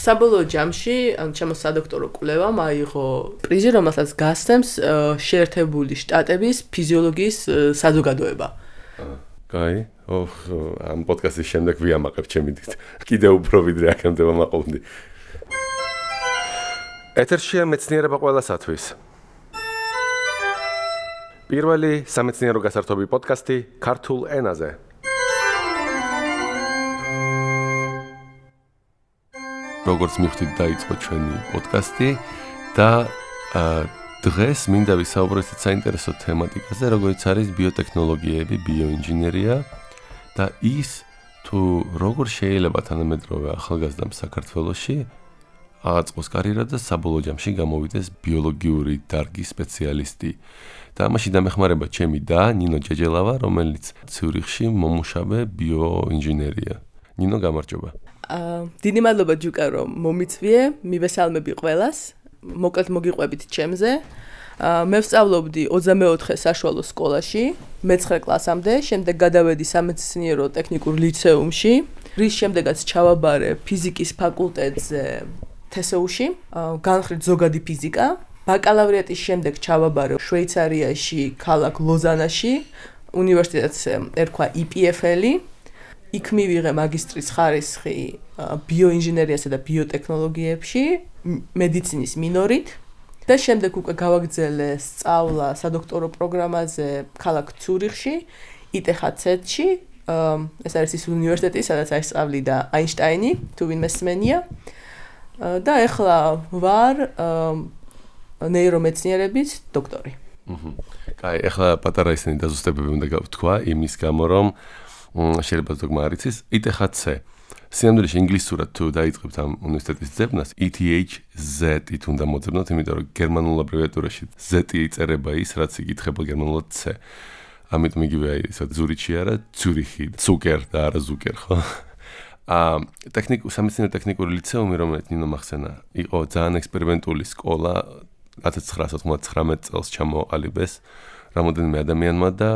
საბოლოო ჯამში ჩემო სადოქტორო კვლევამ აიღო პრიზი, რომელსაც გასცემს შეერთებული შტატების ფიზიოლოგიის საზოგადოება. კაი, ამ პოდკასტის შემდეგ ვიამაყებ ჩემი დიდ. კიდევ უფრო ვიდრე აქამდე ვამაყობდი. ეთერშია მეცნიერება ყველასათვის. პირველი სამეცნიერო გასართობი პოდკასტი ქართულ ენაზე. როგორც მივხვდით, დაიწყო ჩვენი პოდკასტი და დღეს მინდა ვისაუბროთ საინტერესო თემატიკაზე, როგორც არის ბიოტექნოლოგიები, ბიოინჟინერია და ის თუ როგორ შეიძლება თანამედროვე ახალგაზრდამ საქართველოში აწყოს კარიერა და საბოლოო ჯამში გამოვიდეს ბიოლოგიური დარგის სპეციალისტი. და ამაში დამეხმარება ჩემი და ნინო ჯეჯელავა, რომელიც ციურიხში მომუშავე ბიოინჟინერია. ნინო, გამარჯობა. დიდი მადლობა ჯუკა, რომ მომიწვიე, მივესალმები ყველას. მოკლედ მოგიყვებით ჩემზე. მე ვსწავლობდი 24 საშუალო სკოლაში, მე-9 კლასამდე, შემდეგ გადავედი სამეცნიერო ტექნიკურ ლიცეუმში, რის შემდეგაც ჩავაბარე ფიზიკის ფაკულტეტზე თესეუში, განხრით ზოგადი ფიზიკა. ბაკალავრიატის შემდეგ ჩავაბარე შვეიცარიაში, ქალაქ ლოზანაში, უნივერსიტეტს ერქვა EPFL. იქ მივიღე მაგისტრის ხარისხი ბიოინჟინერიასა და ბიოტექნოლოგიებში, მედიცინის მინორით და შემდეგ უკვე გავაგრძელე სწავლა სადოქტორო პროგრამაზე ქალაქ ციურიხში, ETHZ-ში. ეს არის ის უნივერსიტეტი, სადაც აისწავლიდა აინშტაინი, თუ ვინმე სმენია. და ეხლა ვარ ნეირომეცნიერების დოქტორი. კაი, ეხლა პატარა ისინი დაზუსტებები უნდა გავთქვა იმის გამო, რომ შეიძლება ზოგმა არ იცის, ETHZ. სინამდვილეში ინგლისურად თუ დაიწყებთ ამ უნივერსიტეტის ძებნას, ETHZ-ით უნდა მოძებნოთ, იმიტომ რომ გერმანულ აბრევიატურაში Z-ი იწერება ის, რაც იკითხება გერმანულად C. ამიტომ იგივე ისე ზურიჩი არა, ციურიხი, ზუკერ და არა ზუკერ, ხო? სამეცნიერო ტექნიკური ლიცეუმი, რომელიც ნინო მახსენა, იყო ძალიან ექსპერიმენტული სკოლა, 1999 წელს ჩამოყალიბეს რამოდენიმე ადამიანმა და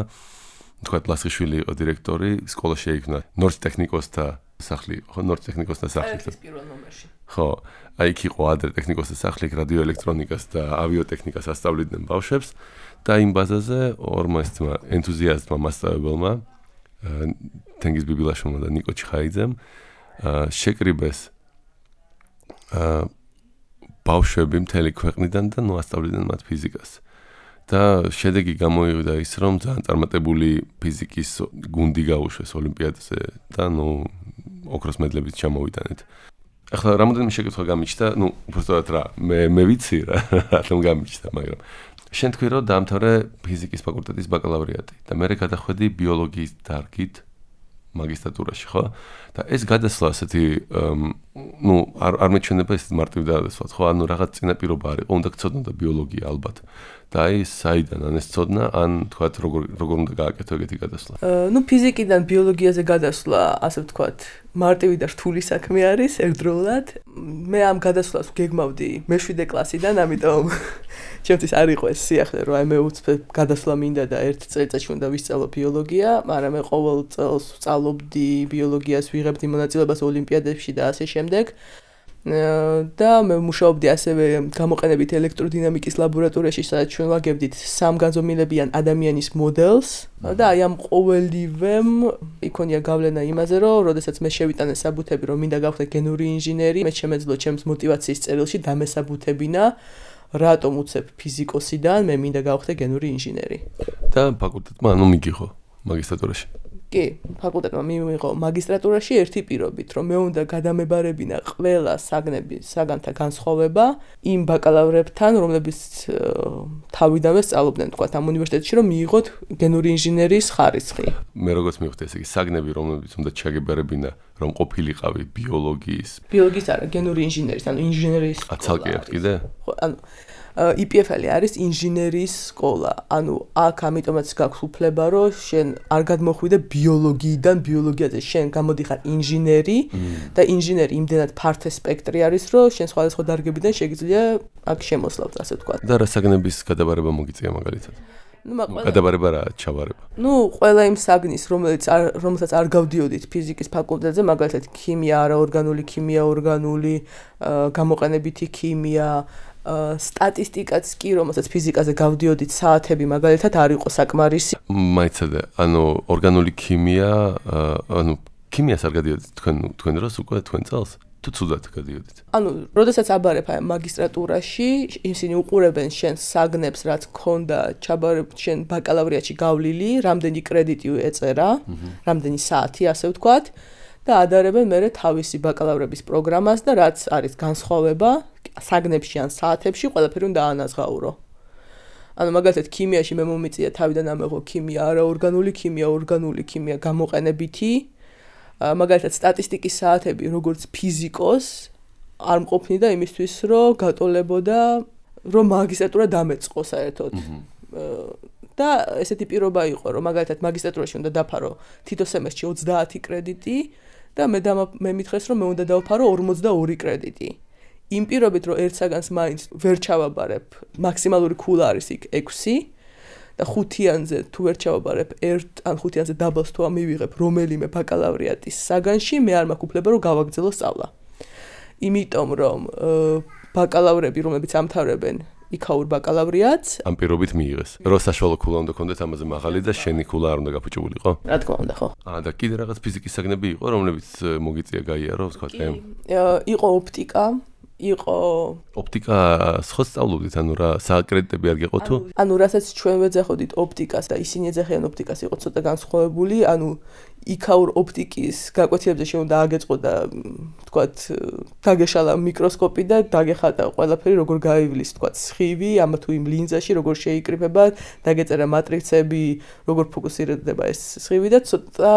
თქვათ ლასხიშვილი იყო დირექტორი, სკოლა შეიქმნა ნორჩტექნიკოსთა სახლი, ხო, ნორჩტექნიკოსთა სახლი. ეს პირველ ნომერში. ხო, აი იქ იყო ადრე ტექნიკოსთა სახლი, რადიოელექტრონიკას და ავიოტექნიკას ასწავლიდნენ ბავშვებს და იმ ბაზაზე ორმა ესმა ენთუზიასტმა მასწავლებელმა, თენგიზ ბიბილაშვილმა და ნიკო ჩხაიძემ შეკრიბეს ბავშვები მთელი ქვეყნიდან და ასწავლიდნენ მათ ფიზიკას. და შედეგი გამოიღო ის, რომ ძალიან წარმატებული ფიზიკის გუნდი გაუშვეს ოლიმპიადაზე და ოქროს მედლებით ჩამოვიტანეთ. ახლა რამოდენიმე შეკითხვა გამიჩნდა, უბრალოდ რა, მე ვიცი რა, რატომ გამიჩნდა, მაგრამ შენ თქვი, რომ დაამთავრე ფიზიკის ფაკულტეტის ბაკალავრიატი და მე გადახვედი ბიოლოგიის დარგით მაგისტრატურაში, ხო? და ეს გადასვლა ასეთი არ მეჩვენება ეს მარტივ გადასვლად, ხო? ანუ რაღაც წინაპირობა არ იყო, უნდა გწოდნოდა ბიოლოგია ალბათ. და აი საიდან ან ეს წოდნა, ან თქვათ როგორ უნდა გააკეთო ეგეთი გადასვლა? ფიზიკიდან ბიოლოგიაზე გადასვლა, ასე ვთქვათ, მარტივი და რთული საქმე არის ერთდროულად. მე ამ გადასვლას გეგმავდი მე-7 კლასიდან, ამიტომ ჩემთვის არ იყო ეს სიახლე, რომ მე უცებ გადასვლა მინდა და ერთ წელიწადში უნდა ვისწავლო ბიოლოგია, მაგრამ მე ყოველ წელს ვსწავლობდი ბიოლოგიას, ვიღებდი მონაწილეობას ოლიმპიადებში და ასე შემდეგ. და მე მუშაობდი ასევე გამოყენებით ელექტროდინამიკის ლაბორატორიაში, სადაც ჩვენ ვაგებდით სამგანზომილებიან ადამიანის მოდელს და აი ამ ყოველივემ იქონია გავლენა იმაზე, რომ როდესაც მე შევიტანე საბუთები, რომ მინდა გავხდე გენური ინჟინერი, მე შემეძლო ჩემს мотиваციის წერილში დამესაბუთებინა, რატომ უცებ ფიზიკოსიდან მე მინდა გავხდე გენური ინჟინერი. და ფაკულტეტმა მიგიღო მაგისტრატურაში. კი, ფაკულტეტმა მიიღო მაგისტრატურაში ერთი პირობით, რომ მე უნდა გადამებარებინა ყველა საგანთა განსხვავება იმ ბაკალავრებთან, რომლებიც თავიდანვე სწავლობდნენ, თქვათ, ამ უნივერსიტეტში, რომ მიიღოთ გენური ინჟინერის ხარისხი. მე როგორც მივხვდი, ესე იგი, საგნები, რომლებიც უნდა ჩაგებარებინა, რომ ყოფილიყავი ბიოლოგიის არა, გენური ინჟინერის, ანუ ინჟინერის სკოლა. ცალკე აქვს კიდე? ხო, ანუ EPFL არის ინჟინერის სკოლა. ანუ აქ ამიტომაც გაქვს უფლება, რომ შენ არ გადმოხვიდე ბიოლოგიიდან ბიოლოგიაზე, შენ გამოდიხარ ინჟინერი და ინჟინერი იმდენად ფართო სპექტრი არის, რომ შენ სხვადასხვა დარგებიდან შეგიძლია აქ შემოსვლავთ, ასე ვთქვათ. და რა საგნების გადაბარება მოგიწია მაგალითად? გადაბარება რა ჩავარება? ყველა იმ საგნის, რომელსაც არ გავდიოდით ფიზიკის ფაკულტეტზე, მაგალითად ქიმია, არაორგანული ქიმია, ორგანული, გამოყენებითი ქიმია, სტატისტიკაც კი, რომელსაც ფიზიკაზე გავდიოდით საათები, მაგალითად არ იყო საკმარისი. მაიცადე, ორგანული ქიმია, ქიმიას არ გადიოდით თქვენ დროს უკვე თქვენ წელს? თუ ცუდად გადიოდით. როდესაც აბარებ მაგისტრატურაში, ისინი უყურებენ შენს საგნებს, რაც ქონდა შენ ბაკალავრიატში გავლილი, რამდენი კრედიტი ეწერა, რამდენი საათი, ასე ვთქვათ, და ადარებენ მერე თავისი ბაკალავრების პროგრამას და რაც არის განსხვავება საგნებში ან საათებში, ყველაფერი უნდა აანაზღაურო. მაგალითად ქიმიაში მე მომიწია თავიდან ამეღო ქიმია, არაორგანული ქიმია, ორგანული ქიმია, გამოყენებითი. მაგალითად სტატისტიკის საათები როგორც ფიზიკოს არ მყოფნიდა იმისთვის რომ გატოლებოდა რომ მაგისტრატურა დამეწყო საერთოდ და ესეთი პირობა იყო რომ მაგალითად მაგისტრატურაში უნდა დაფარო თითო სემესტრში 30 კრედიტი და მე მითხრეს რომ მე უნდა დავფარო 42 კრედიტი იმ პირობით რომ ერთ საგანს მაინც ვერ ჩავაბარებ მაქსიმალური ქულა არის იქ 6 და 5-იანზე თუ ვერ ჩავაბარებ 1 ან 5-იანზე დაბალს თუ ამივიღებ რომელიმე ბაკალავრიატის საგანში, მე არ მაქვს უფლება რომ გავაგრძელო სწავლა. იმიტომ რომ ბაკალავრები, რომლებიც ამთავრებენ იქაურ ბაკალავრიატს, ამ პირობით მიიღეს. რომ საშუალო ქულა უნდა გქონდეთ ამაზე მაღალი და შენი ქულა არ უნდა გაფუჭებულიყო? რა თქმა უნდა, ხო. და კიდე რაღაც ფიზიკის საგნები იყო, რომლებიც მოგიწია გაიარო, ვთქვა, იყო ოპტიკა, იყო ოპტიკას ხო სწავლობდით, რა საკრედიტები არ გეყო თუ? რასაც ჩვენ ვეძახოდით ოპტიკას და ისინი ეძახიან ოპტიკას, იყო ცოტა განსხვავებული, იქაურ ოპტიკის გაკვეთილებზე შეუნდა აგეწყო და ვთქვათ, დაგეშალა მიკროსკოპი და დაგეხატა ყველაფერი, როგორ გაივლის, ვთქვათ, სხივი, თუ იმ ლინზაში როგორ შეიკრიფება, დაგეწერა მატრიცები, როგორ ფოკუსირდება ეს სხივი და ცოტა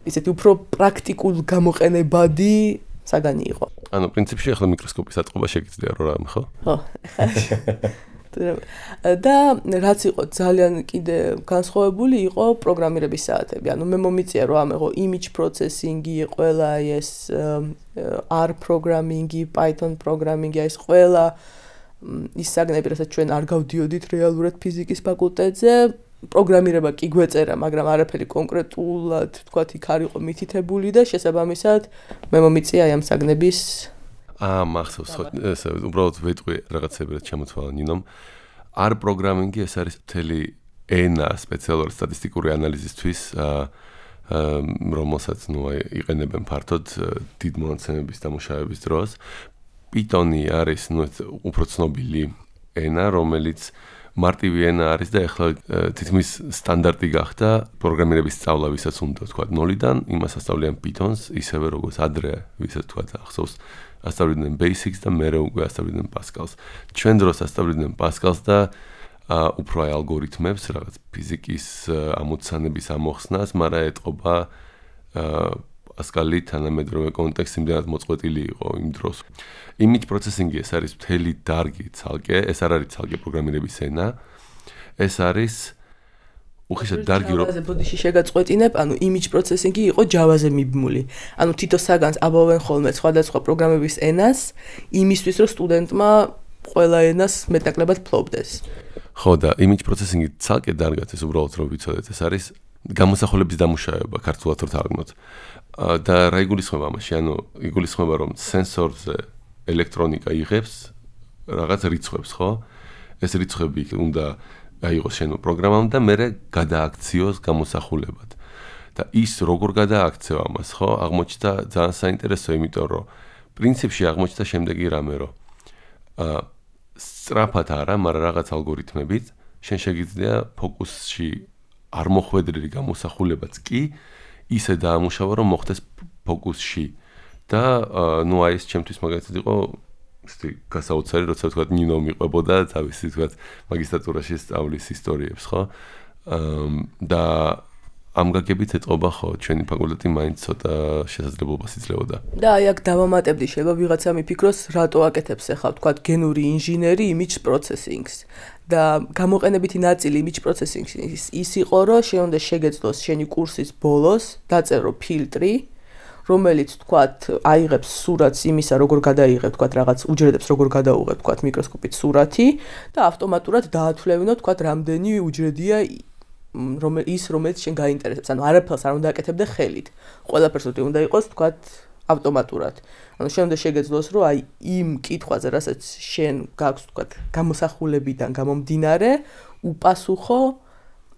ისეთი უფრო პრაქტიკულ გამოყენებადი საგანი იყო. პრინციპში ახლა მიკროსკოპის აწყობა შეგიძლია რა რამე, ხო? ხო, და რაც იყო ძალიან კიდე განსხვავებული იყო პროგრამირების საათები. მე მომიწია რომ ამეღო image processing-ი, ყველა ეს R programming-ი, Python programming-ი, ეს ყველა ის საგნები, რასაც ჩვენ არ გავდიოდით რეალურად ფიზიკის ფაკულტეტზე, პროგრამირება კი გვეწერა, მაგრამ არაფერი კონკრეტულად, თქვათ, იქ არ იყო მითითებული და შესაბამისად მე მომიწია ამ საგნების მახსოვს, ხო, ესე უბრალოდ ვეტყვი რაღაცები რაც შემოთვალა ნინომ. R programming-ი ეს არის მთელი ენა სპეციალური სტატისტიკური ანალიზისთვის, რომელსაც იყენებენ ფართოდ დიდ მონაცემების დამუშავების დროს. Python-ი არის უფრო ცნობილი ენა, რომელიც მარტივი ენა არის და ახლა თითქმის სტანდარტი გახდა პროგრამირების სწავლა, ვისაც უნდა თქვა 0-დან, იმას ასწავლიან Python-ს, ისევე როგორც ადრე, ვისაც თქვა ახსოვს, ასწავლიდნენ Basics და მერე უკვე ასწავლიდნენ Pascal-ს. ჩვენ დროს ასწავლიდნენ Pascal-ს და უფრო ალგორითმებს, რაღაც ფიზიკის ამოცანების ამოხსნას, მაგრამ ეტყობა Pascal-ი თანამედროვე კონტექსტი იმდენად მოწყვეტილი იყო იმ დროს. Image processing-ი ეს არის მთელი დარგი ცალკე, ეს არ არის ცალკე პროგრამირების ენა. ეს არის უხეშად დარგი რომ Java-ზე ბოდიში შეგაწყვეტინებ, image processing-ი იყო Java-ზე მიბმული. თითო საგანს აბავენ ხოლმე სხვადასხვა პროგრამების ენას, იმისთვის რომ სტუდენტმა ყველა ენას მეტნაკლებად ფლობდეს. ხო და image processing-ი ცალკე დარგად ეს უბრალოდ რომ ვიცოდეთ, ეს არის გამოსახულების დამუშავება, ქართულად რო თარგმნოთ. და რა იგულისხმება ამაში? იგულისხმება რომ სენსორზე ელექტრონიკა იღებს რაღაც რიცხვებს, ხო? ეს რიცხვები უნდა აიღოს შენო პროგრამამ და მერე გადააქციოს გამოსახულებად. და ის როგორ გადააქცევ ამას, ხო? აღმოჩნდა ძალიან საინტერესო, იმიტომ რომ პრინციპში აღმოჩნდა შემდეგი რამე, რომ სწრაფად არა, მაგრამ რაღაც ალგორითმებით შენ შეგიძლია ფოკუსში არ მოხვედრილი გამოსახულებაც კი ისე დაამუშავა, რომ მოხდეს ფოკუსში. და აი ეს ჩემთვის მაგალითად იყო გასაოცარი, როცა ვთქვათ ნინო მიყვებოდა თავისი ვთქვათ მაგისტრატურაში სწავლის ისტორიებს, ხო? და ამ გაგებით ეტყობა, ხო, ჩვენი ფაკულტეტი მაინც ცოტა შესაძლებლობას იძლეოდა. და აი აქ დავამატებდი, შეიძლება ვიღაცა მიფიქროს, რატო აკეთებს ახლა ვთქვათ გენური ინჟინერი image processing-ს. და გამოყენებითი ნაწილი image processing-ის ის იყო, რომ შენ უნდა შეგეძლოს შენი კურსის ბოლოს, დაწერო ფილტრი, რომელიც თქვათ აიღებს სურათს იმისა, როგორ გადაიღებ თქვათ რაღაც უჯრედებს, როგორ გადაუღებ თქვათ მიკროსკოპით სურათი და ავტომატურად დაათვლევინო თქვათ რამდენი უჯრედია რომელიც შენ გაინტერესებს. ანუ არაფერს არ უნდა აკეთებდე ხელით. ყველაფერს უნდა იყოს თქვათ ავტომატურად. ანუ შენ უნდა შეგეძლოს, რომ აი იმ კითხვაზე, რასაც შენ გაქვს თქვათ გამოსახულებიდან გამომდინარე, უპასუხო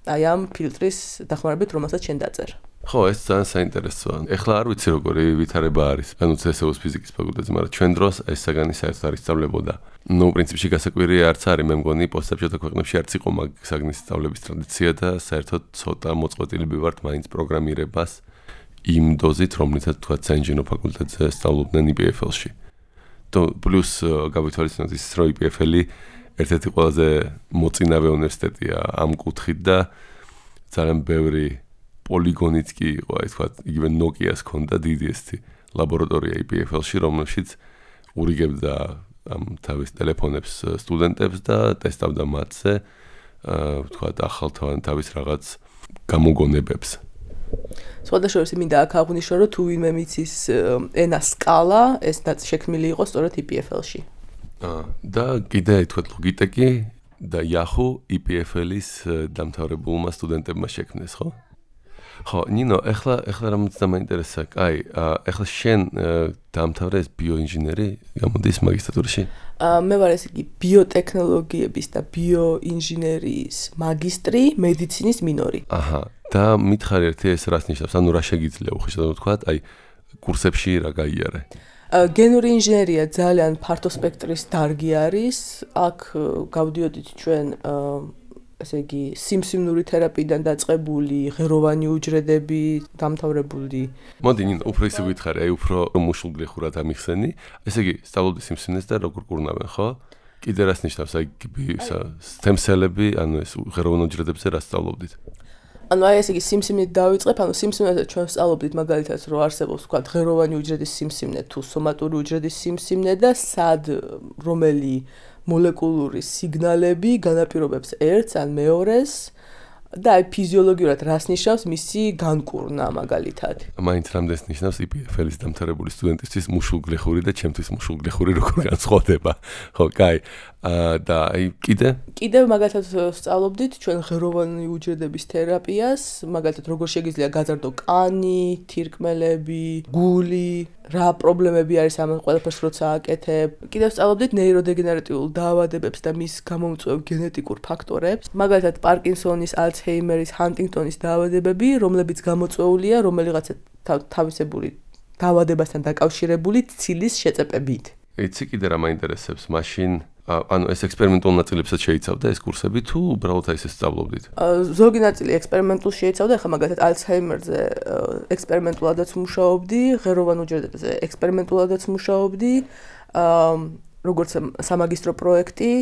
აი ამ ფილტრის დახმარებით, რომელსაც შენ დაწერე. ხო, ეს ძალიან საინტერესოა. ეხლა არ ვიცი როგორი ვითარება არის. ანუ CSU-ს ფიზიკის ფაკულტეტზე, მაგრამ ჩვენ დროს ეს საგანი საერთოდ არ ისწავლებოდა. ნუ პრინციპში გასაკვირია არც არის, მე მგონი პოსტსაბჭოთა ქვეყნებში არც იყო მაგ საგნის სწავლების ტრადიცია და საერთოდ ცოტა მოწყვეტილები ვართ მაინც პროგრამირებას იმ დოზით, რომლითაც თქვა საინჟინრო ფაკულტეტზე სწავლობდნენ IPFL-ში. და პლუს გავითვალისწინოთ ის, რომ IPFL-ი ერთ-ერთი ყველაზე მოწინავე უნივერსიტეტია ამ კუთხით და ძალიან ბევრი პოლიგონიც კი იყო, აი თქვა, იგივე Nokia-ს ჰქონდა დიდი ესეთი ლაბორატორია IPFL-ში, რომელშიც ურიგებდა ამ თავის ტელეფონებს სტუდენტებს და ტესტავდა მათზე, თქვა, ახალთავად თავის რაღაც გამოგონებებს. სხვადასხვა მინდა აქ აღვნიშნო, რომ თუ ვინმე მიცის ენა სკალა, ეს შექმნილი იყო სწორედ IPFL-ში. და კიდე თქვა ლოგიტეკი და Yahoo IPFL-ის დამთავრებულმა სტუდენტებმა შექმნეს, ხო? ხო, ნინო, ეხლა რამაც დამაინტერესა, აი, ეხლა შენ დაამთავრე ეს ბიოინჟინერი, გამოდის მაგისტრატურაში? მე ვარ ესე იგი ბიოტექნოლოგიების და ბიოინჟინერიის მაგისტრი, მედიცინის მინორი. აჰა, და მითხარი ერთი ეს რას ნიშნავს? ანუ რა შეგიძლია უხეშად ვთქვათ, აი, კურსებში რა გაიარე? გენური ინჟინერია ძალიან ფართო სპექტრის დარგი არის. აქ გავდიოდით ჩვენ ესე იგი სიმსივნური თერაპიიდან დაწყებული ღეროვანი უჯრედები, დამთავრებული. მოდი, ნინო, უფრო ისე გითხარი, აი უფრო მუშულგლეხურად ამიხსენი. ესე იგი, სწავლობდი სიმსივნეს და როგორ კურნავენ, ხო? კიდე რას ნიშნავს, აი სტემსელები, ანუ ეს ღეროვან უჯრედებზე რა სწავლობდით? ანუ აი ესე იგი სიმსივნით დავიწყებ, ანუ სიმსივნეზე ჩვენ სწავლობდით მაგალითად, რომ არსებობს თქვა ღეროვანი უჯრედის სიმსივნე თუ სომატური უჯრედის სიმსივნე და სად რომელი მოლეკულური სიგნალები განაპირობებს ერთს ან მეორეს და აი ფიზიოლოგიურად რას ნიშნავს მისი განკურნა მაგალითად. მაინც რამდენს ნიშნავს IPFL-ის დამთავრებული სტუდენტისთვის მუშულგლეხური და ჩემთვის მუშულგლეხური როგორ განსხვავდება. ხო, კაი. და აი კიდე მაგალითად სწავლობდით ჩვენ ღეროვანი უჯრედების თერაპიას, მაგალითად როგორ შეგიძლია გაძარდო კანი, თირკმელები, გული, რა პრობლემები არის ამ ყველაფერს როცა აკეთებ. კიდევ სწავლობდით ნეიროდეგენერატიულ დაავადებებს და მის გამომწვევ გენეტიკურ ფაქტორებს, მაგალითად პარკინსონის, ალცჰეიმერის, ჰანტინგტონის დაავადებები, რომლებიც გამოწვეულია რომელიღაცა თავისებური დაავადებასთან დაკავშირებული ცილის შეწეპებით. იცი კიდე რა მაინტერესებს მაშინ ანუ ეს ექსპერიმენტულ ნაწილებსაც შეიცავდა ეს კურსები თუ უბრალოდ აი ესე სწავლობდით? ზოგი ნაწილი ექსპერიმენტულ შეიცავდა, ახლა მაგალითად ალცჰეიმერზე ექსპერიმენტულადაც მუშაობდი, ღეროვან უჯრედებზე ექსპერიმენტულადაც მუშაობდი, როგორც სამაგისტრო პროექტი,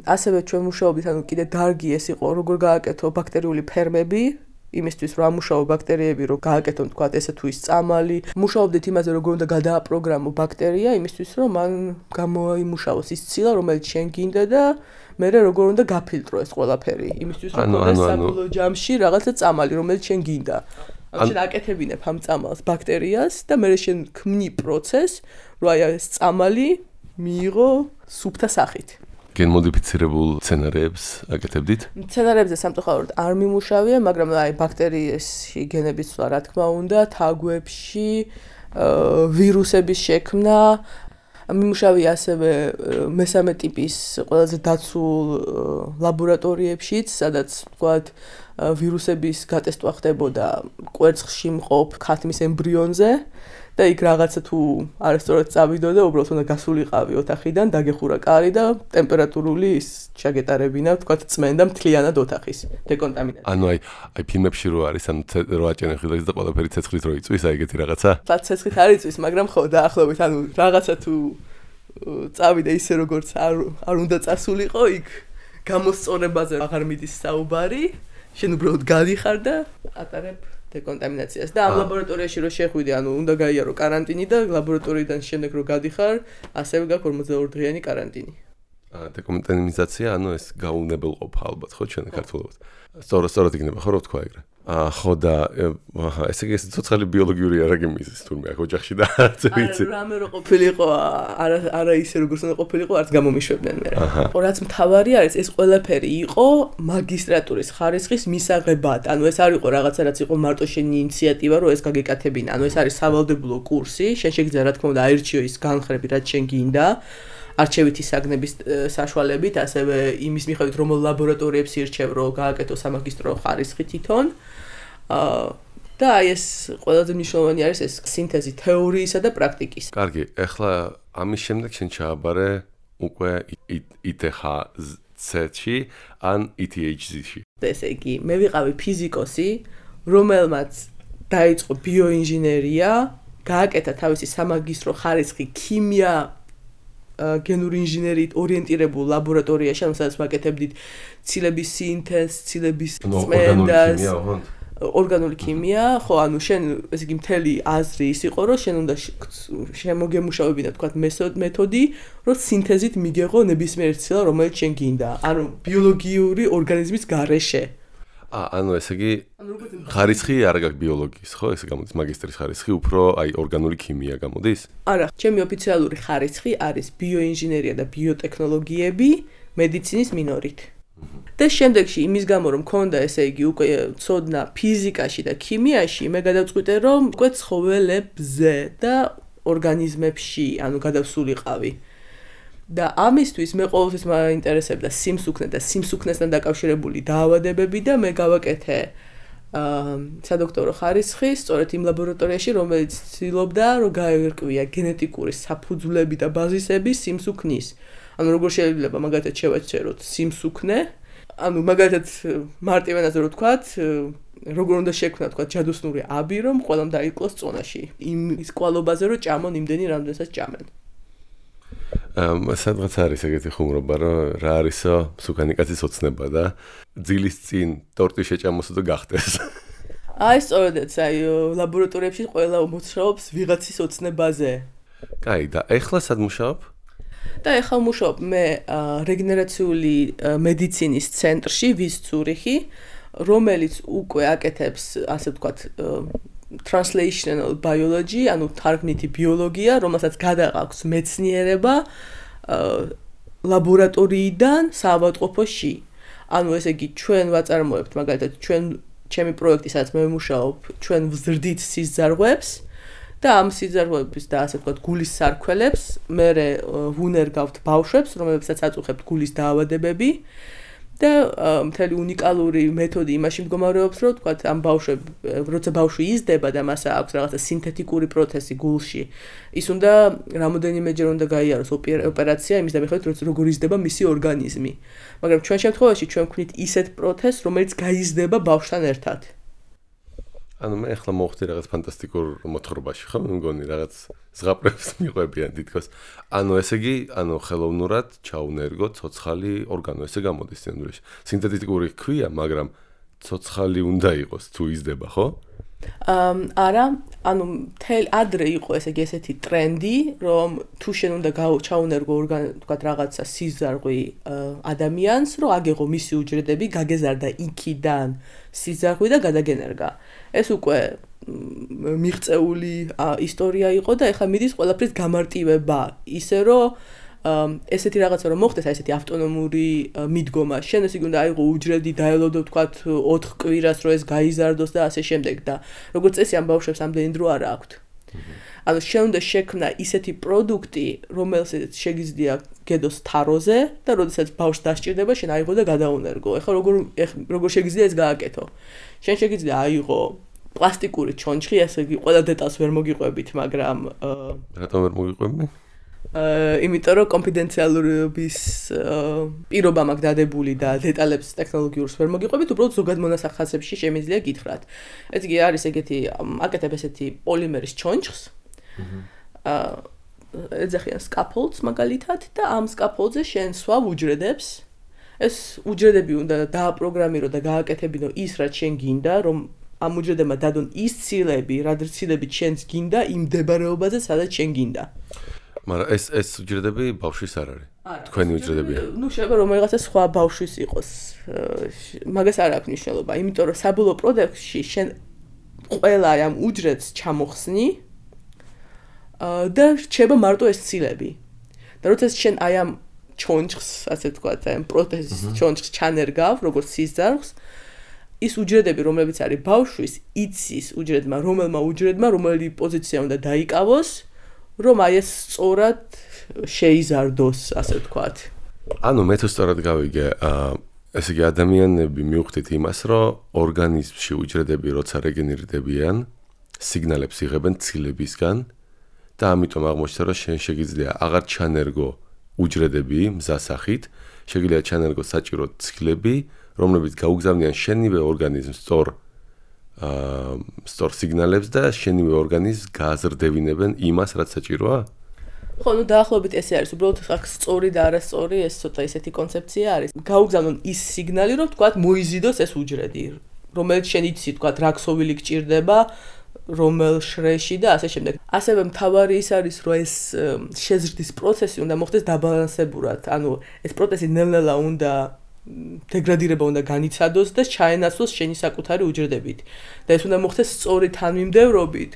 ასევე ჩვენ მუშაობდით, ანუ კიდე დარგი ეს იყო, როგორ გააკეთო ბაქტერიული ფერმები, იმისთვის რომ ამუშაო ბაქტერიები, რომ გააკეთონ თქვათ ესე თუ ის წამალი. მუშაობდით იმაზე, როგორ უნდა გადააპროგრამო ბაქტერია, იმისთვის რომ მან გამოიმუშაოს ის ცილა, რომელიც შენ გინდა და მერე როგორ უნდა გაფილტრო ეს ყველაფერი. იმისთვის რომ მოდეს საბოლოო ჯამში რაღაცა წამალი, რომელიც შენ გინდა. ანუ შენ აკეთებინებ ამ წამალს ბაქტერიას და მერე შენ ქმნი პროცესს, რომ აი ეს წამალი მიიღო სუფთა სახით. გენმოდიფიცირებულ სცენარებს აკეთებდით? სცენარებზე სამწუხაროდ არ მიმუშავია, მაგრამ აი ბაქტერიებში გენების ცვლა რა თქმა უნდა, თაგვებში, ვირუსების შექმნა, მიმუშავია ასევე მესამე ტიპის ყველაზე დაცულ ლაბორატორიებშიც, სადაც ვთქვათ ვირუსების გატესტვა ხდებოდა კვერცხში მყოფ ქათმის ემბრიონზე. და იქ რაღაცა თუ არასწორად წავიდო და უბრალოდ უნდა გასულიყავი ოთახიდან, დაგეხურა კარი და ტემპერატურული ის ჩაგეტარებინა, თქვათ წმენდა მთლიანად ოთახის დეკონტამინაცია. ანუ აი ფილმებში რო არის, ანუ რო აჭენენ ხილაკს და ყველაფერი ცეცხლით რო იწვის, აი ეგეთი რაღაცა? ფლაც ცეცხლით არ იწვის, მაგრამ ხო დაახლოებით, ანუ რაღაცა თუ წავიდე ისე როგორც არ უნდა წასულიყო, იქ გამოსწორებაზე აღარ მიდის საუბარი, შენ უბრალოდ გადიხარ და ატარებ დეკონტამინაციას და ამ ლაბორატორიაში რო შეხვიდე, ანუ უნდა გაიარო კარანტინი და ლაბორატორიიდან შემდეგ რო გადიხარ, ასევე გაქვს 42 დღიანი კარანტინი. დეკონტამინაცია, ანუ ეს გაუნებელყოფა ალბათ, ხო, ჩვენ ქართულად. სწორად იქნება, ხო, რო ვთქვა ეგრე. ხო და ესე იგი ცოცხალი ბიოლოგიური არაგი მიზის თურმე ოჯახში და არც ვიცი. რამე რო ყოფილიყო, არა ისე როგორც უნდა ყოფილიყო, არც გამომიშვებდნენ მე. რაც მთავარი არის, ეს ყველაფერი იყო მაგისტრატურის ხარისხის მისაღებად. ანუ ეს არ იყო რაღაცა, რაც იყო მარტო შენი ინიციატივა, რომ ეს გაგეკეთებინა. ანუ ეს არის სავალდებულო კურსი, შენ შეგიძლია რა თქმა უნდა აირჩიო ის განხრები, რაც შენ გინდა. არჩევითი საგნების საშუალებით, ასევე იმის მიხედვით, რომელ ლაბორატორიებს ირჩევ, რომ გააკეთო სამაგისტრო ხარისხი თვითონ. და აი ეს ყველაზე მნიშვნელოვანი არის ეს სინთეზი თეორიისა და პრაქტიკის. კარგი, ეხლა ამის შემდეგ შენ ჩააბარე უკვე ITHZ-ში ან ETHZ-ში. ესე იგი, მე ვიყავი ფიზიკოსი, რომელმაც დაიწყო ბიოინჟინერია, გააკეთა თავისი სამაგისტრო ხარისხი ქიმია გენური ინჟინერიით ორიენტირებულ ლაბორატორიაში, სადაც ვაკეთებდით ცილების სინთეზს, ცილების წმენდას, ორგანული ქიმია, ხო, ანუ შენ ესე იგი მთელი აზრი ის იყო, რომ შენ უნდა შემოგემუშავებინა, თქვათ, მეთოდი, რომ სინთეზით მიგეღო ნებისმიერ ცილა, რომელიც შენ გინდა, ანუ ბიოლოგიური ორგანიზმის გარეშე. ანუ ესე იგი ხარისხი არ გაქვს ბიოლოგიის, ხო? ესე გამოდის მაგისტრის ხარისხი, უფრო აი ორგანული ქიმია გამოდის? არა, ჩემი ოფიციალური ხარისხი არის ბიოინჟინერია და ბიოტექნოლოგიები მედიცინის მინორით. და შემდეგში იმის გამო რომ მქონდა ესე იგი უკვე ცოდნა ფიზიკაში და ქიმიაში, მე გადავწყვიტე რომ უკვე ცხოველებზე და ორგანიზმებში, ანუ გადავსულიყავი. და ამისთვის მე ყოველთვის მაინტერესებდა სიმსუქნე და სიმსუქნესთან დაკავშირებული დაავადებები და მე გავაკეთე სადოქტორო ხარისხი სწორედ იმ ლაბორატორიაში, რომელიც ცდილობდა რომ გაერკვია გენეტიკური საფუძვლები და ბაზისები სიმსუქნის. ანუ როგორ შეიძლება მაგალითად შევაჩეროთ სიმსუქნე, ანუ მაგალითად მარტივენაზე რო ვთქვათ, როგორ უნდა შექმნა თქვათ ჯადოსნური აბი, რომ ყველამ დაიკლოს წონაში. ის კვალობაზე რომ ჭამონ იმდენი, რამდენსაც ჭამენ. სადღაც არის ეგეთი ხუმრობა, რომ რა არისო მსუქანი კაცის ოცნება და ძილის წინ ტორტი შეჭამოსო და გახდეს. აი სწორედაც, აი ლაბორატორიებში ყველა მუშაობს ვიღაცის ოცნებაზე. კაი, და ეხლა სად მუშაობ? და ეხლა მუშაობ მე რეგენერაციული მედიცინის ცენტრში ვის ცურიხი, რომელიც უკვე აკეთებს, ასე ვთქვათ, translational biology, ანუ თარგმნითი ბიოლოგია, რომელსაც გადააქვს მეცნიერება ლაბორატორიიდან საავადმყოფოში. ანუ ესე იგი ჩვენ ვაწარმოებთ, მაგალითად, ჩემი პროექტი, სადაც მე ვმუშაობ, ჩვენ ვზრდით სიზარღვებს და ამ სიზარღვების და ასე ვთქვათ, გულის სარქველებს მე ვუნერგავთ ბავშვებს, რომლებსაც აწუხებთ გულის დაავადებები. და მთელი უნიკალური მეთოდი იმაში მდგომარეობს, რომ თქვათ ამ როცა ბავშვი იზრდება და მას აქვს რაღაცა სინთეთიკური პროცესი გულში, ის უნდა რამოდენიმეჯერ უნდა გაიაროს ოპერაცია იმის დამიხმარებით, როგორ იზრდება მისი ორგანიზმი. მაგრამ ჩვენ შემთხვევაში ჩვენ ვქნით ისეთ პროცესს, რომელიც გაიზრდება ბავშვთან ერთად. ანუ მე ახლა მოვხდი რაღაც ფანტასტიკურ მოთხრობაში, ხო? მე მგონი რაღაც ზღაპრებს მიყვებიან თითქოს. ანუ ესე იგი, ანუ ხელოვნურად ჩაუნერგო ცოცხალი ორგანო, ესე გამოდის სინამდვილეში. სინთეთიკური ქვია, მაგრამ ცოცხალი უნდა იყოს თუ იზრდება, ხო? არა, ანუ ადრე იყო ესე იგი ესეთი ტრენდი, რომ თუ შენ უნდა ჩაუნერგო თქვათ რაღაცა სიზარღვი ადამიანს, რომ აგეღო მისი უჯრედები, გაგეზარდა იქიდან სიზარღვი და გადაგენერგა. ეს უკვე მიღწეული ისტორია იყო და ეხლა მიდის ყველაფრის გამარტივება, ისე რომ ესეთი რაღაცა რომ მოხდეს, აი ესეთი ავტონომური მიდგომა. შენ ესე იგი უნდა აიღო უჯრედი, დაელოდო თქვათ 4 კვირას, რომ ეს გაიზარდოს და ასე შემდეგ და როგორც წესი ამ ბავშვებს ამდენი დრო არ აქვთ. ანუ შენ უნდა შექმნა ისეთი პროდუქტი, რომელსაც შეგიძლია გედოს თაროზე და როდესაც ბავშვს დასჭირდება, შენ აიღო და გადაუნერგო. ეხლა როგორ შეგიძლია ეს გააკეთო? შენ შეგიძლია აიღო პლასტიკური ჩონჩხი, ასე იგი ყველა დეტალს ვერ მოგიყვებით, მაგრამ რატომ ვერ მოგიყვები? იმიტომ რომ კონფიდენციალურობის პირობა მაქვს დადებული და დეტალებს ტექნოლოგიურს ვერ მოგიყვებით, უბრალოდ ზოგად მონასახასებში შემიძლია გითხრათ. ეს იგი არის ეგეთი აკეთებ ესეთი პოლიმერის ჩონჩხს. ეძახიან scaffolds მაგალითად და ამ scaffoldზე შენ სვავ უჯრედებს. ეს უჯრედები უნდა დააპროგრამირო და გააკეთებინო ის, რაც შენ გინდა, რომ ამ უჯრედებმა დადონ ის ცილები, რა ცილები შენს გინდა იმ მდებარეობაზე, სადაც შენ გინდა. მაგრამ ეს უჯრედები ბავშვის არ არის. თქვენი უჯრედებია. ნუ შეიძლება რომ რაღაცა სხვა ბავშვის იყოს. მაგას არ აქვს მნიშვნელობა, იმიტომ რომ საბოლოო პროდუქტში შენ ყველა ამ უჯრედს ჩამოხსნი და რჩება მარტო ეს ცილები. და როცა შენ აი ამ ჩონჩხს, ასე ვთქვათ, აი ამ პროთეზის ჩონჩხს ჩანერგავ, როგორც სიზარხს, ის უჯრედები, რომლებიც არის ბავშვის, იცის უჯრედმა, რომელი პოზიცია უნდა დაიკავოს, რომ აი ეს სწორად შეიზარდოს, ასე ვთქვათ. ანუ მე თუ სწორად გავიგე, ესე იგი ადამიანები მივხვდით იმას, რომ ორგანიზმში უჯრედები როცა რეგენერირდებიან, სიგნალებს იღებენ ცილებისგან და ამიტომ აღმოჩნდა, რომ შენ შეგიძლია აღარ ჩანერგო უჯრედები მზასახით, შეგიძლია ჩანერგო საჭირო ცილები, რომლებიც გაუგზავნიან შენივე ორგანიზმს სწორ სიგნალებს და შენივე ორგანიზმს გააზრდებინებენ იმას, რაც საჭიროა? ხო, ნუ დაახლოებით ესე არის, უბრალოდ აქ სწორი და არასწორი ეს ცოტა ისეთი კონცეფცია არის. გაუგზავნონ ის სიგნალი, რომ თქვათ მოიზიდოს ეს უჯრედი, რომელიც შენ იცი, თქვათ, რა ქსოვილი გჭირდება, რომელ შრეში და ასე შემდეგ. ასევე მთავარი ის არის, რომ ეს შეზრდის პროცესი უნდა მოხდეს დაბალანსებურად. ანუ ეს პროცესი ნელ-ნელა უნდა დეგრადირება უნდა განიცადოს და ჩაენაცვლოს შენი საკუთარი უჯრედებით. და ეს უნდა მოხდეს სწორი თანმიმდევრობით,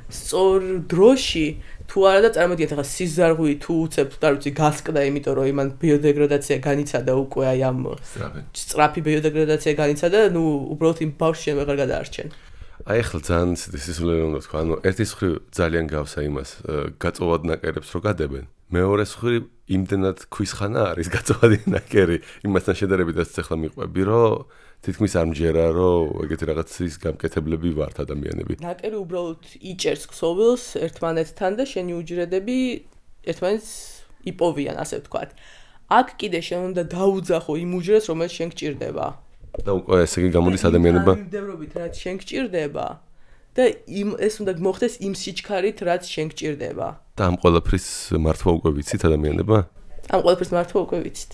სწორ დროში, თუ არა და წარმოგიდგენთ, ახლა სიზარღვი თუ უცებ, არ ვიცი, გასკდა, იმიტომ რომ იმან ბიოდეგრადაცია განიცადა უკვე აი ამ სწრაფი ბიოდეგრადაცია განიცადა, ნუ უბრალოდ იმ ბავშვს შენ ვეღარ გადაარჩენ. აი ახლა ძალიან სისულელე უნდა თქვა, ანუ ერთის მხრივ ძალიან გავსა იმას, გაწოვად ნაკერებს რო გადებენ. მეორეს მხრივ იმდენად ქვისხანა არის გაწოვადი ნაკერი, იმასთან შედარებით ახლა მიყვები, რომ თითქმის არ მჯერა, რომ ეგეთი რაღაცის გამკეთებლები ვართ ადამიანები. ნაკერი უბრალოდ იჭერს ქსოვილს ერთმანეთთან და შენი უჯრედები ერთმანეთს იპოვიან, ასე ვთქვათ. აქ კიდე შენ უნდა დაუძახო იმ უჯრედს, რომელიც შენ გჭირდება. და უკვე ესე იგი გამოდის ადამიანებმა მიმდევრობით, რაც შენ გჭირდება და ეს უნდა მოხდეს იმ სიჩქარით, რაც შენ გჭირდება. და ამ ყველაფრის მართვა უკვე ვიცით ადამიანებმა? ამ ყველაფრის მართვა უკვე ვიცით.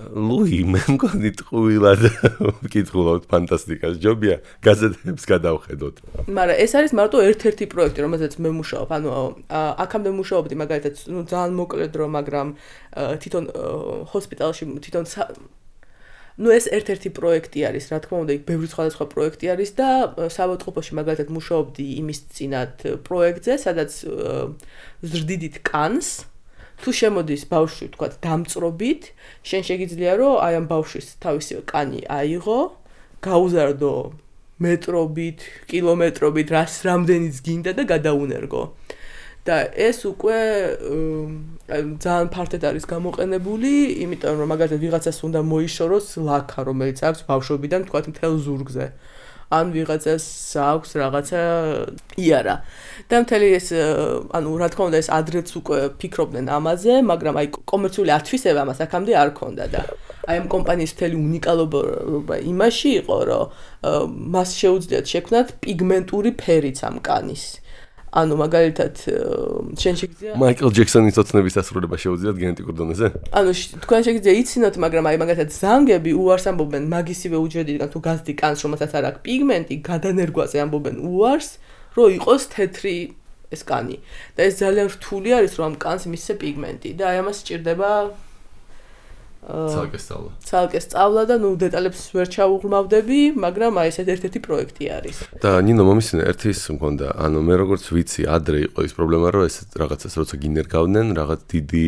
ლუი, მე მგონი ტყუილად ვკითხულობთ ფანტასტიკას, ჯობია გაზეთებს გადავხედოთ. მაგრამ ეს არის მარტო ერთ-ერთი პროექტი, რომელზეც მე მუშაობ. ანუ აქამდე მუშაობდი მაგალითად, ნუ ძალიან მოკლე დრო, მაგრამ თვითონ ჰოსპიტალში თვითონ ნუ ეს ერთ-ერთი პროექტი არის, რა თქმა უნდა, იქ ბევრი სხვადასხვა პროექტი არის და საავადმყოფოში მაგალითად მუშაობდი იმის წინათ პროექტზე, სადაც ზრდიდით კანს. თუ შემოდის ბავშვი, თქვათ, დამწრობით, შენ შეგიძლია რომ აი ამ ბავშვის თავისი კანი აიღო, გაუზარდო მეტრობით, კილომეტრობით, რამდენიც გინდა და გადაუნერგო. და ეს უკვე ძალიან ფართედ არის გამოყენებული, იმიტომ რომ მაგალითად ვიღაცას უნდა მოიშოროს ლაქა, რომელიც აქვს ბავშვობიდან, თქვათ, მთელ ზურგზე. ან ვიღაცას აქვს რაღაცა იარა. და მთელი ეს, ანუ რა თქმა უნდა, ეს ადრეც უკვე ფიქრობდნენ ამაზე, მაგრამ აი კომერციული ათვისება ამას აქამდე არ ქონდა და აი ამ კომპანიის მთელი უნიკალობა იმაში იყო, რომ მას შეუძლიათ შექმნათ პიგმენტური ფერიც ამ კანის. ანუ მაგალითად შენ შეგიძლია მაიკლ ჯექსონის ოცნების დასრულება შეუძლიათ გენეტიკურ დონეზე? ანუ თქვენ შეგიძლია იცინოთ, მაგრამ აი მაგალითად ზანგები უარს ამბობენ მაგისივე უჯრედიდან თუ გაზრდი კანს, რომელსაც არ აქვს პიგმენტი, გადანერგვაზე ამბობენ უარს, რომ იყოს თეთრი ეს კანი. და ეს ძალიან რთული არის, რომ ამ კანს მისცე პიგმენტი და აი ამას სჭირდება ცალკე სწავლა და ნუ დეტალებს ვერ ჩავუღრმავდები, მაგრამ აი ეს ერთ-ერთი პროექტი არის. და ნინო მომისმინე ერთის მქონდა, ანუ მე როგორც ვიცი, ადრე იყო ის პრობლემა, რომ ეს რაღაცას როცა გინერგავდნენ, რაღაც დიდი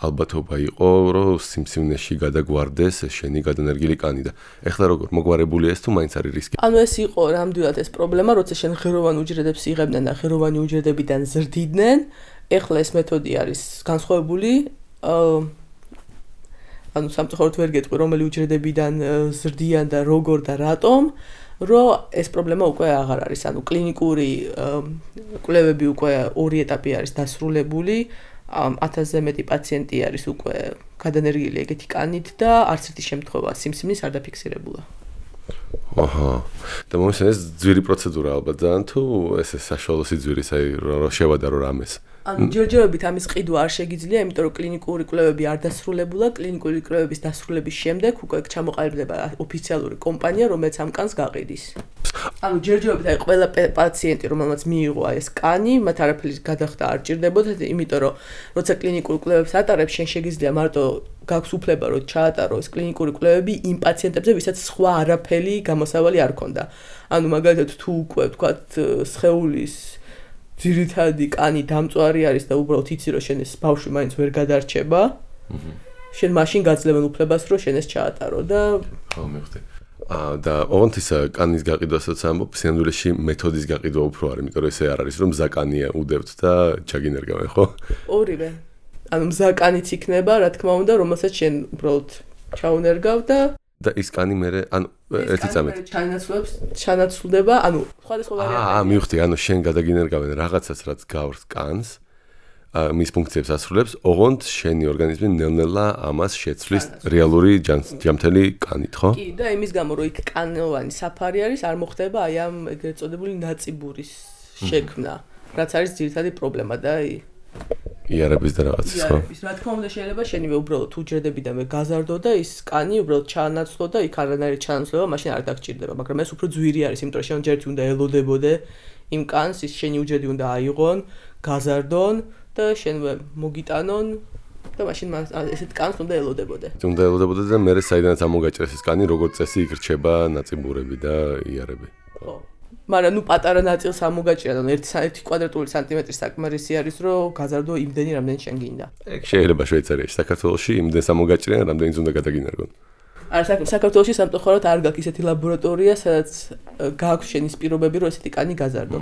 ალბათობა იყო, რომ სიმსივნეში გადაგვარდეს შენი გადანერგილი კანი და ეხლა როგორ მოგვარებულია ეს თუ მაინც არის რისკი? ანუ ეს იყო ნამდვილად ეს პრობლემა, როცა შენ ღეროვან უჯრედებს იღებდნენ და ღეროვანი უჯრედებიდან ზრდიდნენ, ეხლა ეს მეთოდი არის განსხვავებული. ანუ სამწუხაროდ ვერ გეტყვი, რომელი უჯრედებიდან ზრდიან და როგორ და რატომ, რომ ეს პრობლემა უკვე აღარ არის. ანუ კლინიკური კვლევები უკვე ორი ეტაპი არის დასრულებული. 1000-ზე მეტი პაციენტი არის უკვე გადანერგილი ეგეთი კანით და არც ერთი შემთხვევა სიმსივნის არ დაფიქსირებულა. აჰა. და მომისმენს ეს ძვირი პროცედურა ალბათ ძალიან თუ ეს საშუალო სიძვირის, აი რომ შევადარო რამეს. ანუ ჯერჯერობით ამის ყიდვა არ შეგიძლია, იმიტომ რომ კლინიკური კვლევები არ დასრულებულა, კლინიკური კვლევების დასრულების შემდეგ უკვე ჩამოყალიბდება ოფიციალური კომპანია, რომელიც ამ კანს გაყიდის. ანუ ჯერჯერობით აი ყველა პაციენტი, რომელმაც მიიღო აი ეს კანი, მათ არაფერი გადახდა არ ჭირდებოდა, იმიტომ რომ როცა კლინიკურ კვლევებს ატარებს, შენ შეგიძლია მარტო გაქვს უფლება რომ ჩაატარო ეს კლინიკური კვლევები იმ პაციენტებზე, ვისაც სხვა არაფერი გამოსავალი არ ქონდა. ანუ მაგალითად თუ უკვე ვთქვათ სხეულის ძირითადი კანი დამწვარი არის და უბრალოდ იცი რომ შენ ეს ბავშვი მაინც ვერ გადარჩება. შენ მაშინ გაძლევენ უფლებას რომ შენ ეს ჩაატარო და ხო მივხვდი. და ოღონდ ის კანის გაყიდვასაც ამბობ, სინამდვილეში მეთოდის გაყიდვა უფრო არის, იმიტომ რომ ესე არ არის რომ მზა კანია უდევთ და ჩაგინერგავენ, ხო? ორივე. ანუ მზა კანიც იქნება, რა თქმა უნდა, რომელსაც შენ უბრალოდ ჩაუნერგავ და ის კანი მე ანუ ერთი წამით ჩანაცვლდება, ანუ სხვადასხვა ვარიანტია. მივხვდი, ანუ შენ გადაგინერგავენ რაღაცას, რაც გავს კანს, მის ფუნქციებს ასრულებს, ოღონდ შენი ორგანიზმი ნელ-ნელა ამას შეცვლის რეალური ჯამთელი კანით, ხო? კი, და იმის გამო რომ იქ კანოვანი საფარი არის, არ მოხდება აი ამ ეგრეთ წოდებული ნაწიბურის შექმნა, რაც არის ძირითადი პრობლემა და იარების და რაღაცის, ხო? რა თქმა უნდა შეიძლება შენივე უბრალოდ უჯრედები და მე გაზარდო და ის კანი უბრალოდ ჩაანაცვლო და იქ არანაირი ჩანაცვლება მაშინ არ დაგჭირდება, მაგრამ ეს უფრო ძვირი არის, იმიტომ რომ შენ ჯერჯერობით უნდა ელოდებოდე იმ კანს, ის შენი უჯრედი უნდა აიღონ, გაზარდონ და შენვე მოგიტანონ და მაშინ ესეთ კანს უნდა ელოდებოდე. უნდა ელოდებოდე და მე საიდანაც ამოგაჭრეს ეს კანი, როგორც წესი იქ რჩება ნაწიბურები და იარები. ხო. მაგრამ ნუ პატარა ნაწილს ამოგაჭრა, ანუ 1 კვადრატული სანტიმეტრი საკმარისი არის, რომ გაზარდო იმდენი, რამდენი შენ გინდა. ეგ შეიძლება შვეიცარიაში, საქართველოში იმდენს ამოგაჭრიან, რამდენიც უნდა გადაგინერგონ. არა, საქართველოში სამწუხაროდ არ გაქვს ისეთი ლაბორატორია, სადაც გააქვს შენის პირობები, რომ ესეთი კანი გაზარდო.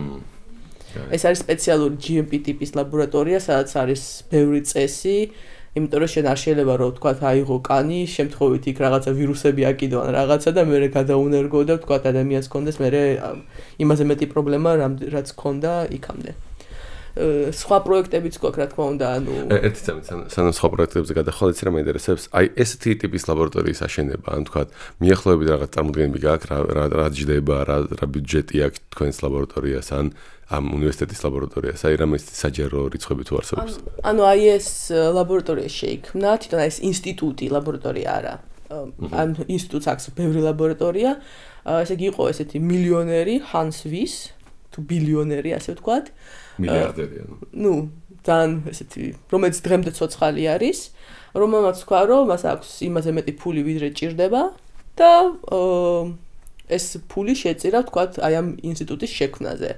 ეს არის სპეციალური GMP ტიპის ლაბორატორია, სადაც არის ბევრი წესი, იმიტომ რომ შენ არ შეიძლება რომ თქვა აიღო კანი, შემთხვევით იქ რაღაცა ვირუსები აკიდო ან რაღაცა და მე გადაუნერგო და თქვა ადამიანს კონდეს მე იმაზე მეტი პრობლემა რაც ქონდა იქამდე. სხვა პროექტებიც გვაქვს, რა თქმა უნდა, ანუ ერთი წამით სანამ სხვა პროექტებზე გადახვალ, იცი რა მაინტერესებს? აი ესეთი ტიპის ლაბორატორიის აშენება, ან თქვა მიახლოებით რაღაც წარმოდგენები გაქვს, რა ჯდება, რა ბიუჯეტი აქვს თქვენს ლაბორატორიას, ან ამ უნივერსიტეტის ლაბორატორიას, აი რამე საჯარო რიცხვები თუ არსებობს? ანუ აი ეს ლაბორატორია შეიქმნა, თვითონ ეს ინსტიტუტი ლაბორატორია არა. ამ ინსტიტუტს აქვს ბევრი ლაბორატორია. ესე იგი იყო ესეთი მილიონერი Hans Wyss, თუ ბილიონერი, ასე ვთქვათ. მილიარდერი ანუ. ნუ, ძალიან ესეთი, რომელიც დღემდე ცოცხალი არის, რომელმაც თქვა, რომ მას აქვს იმაზე მეტი ფული, ვიდრე ჭირდება და ეს ფული შეწირა, ვთქვათ, აი ამ ინსტიტუტის შექმნაზე.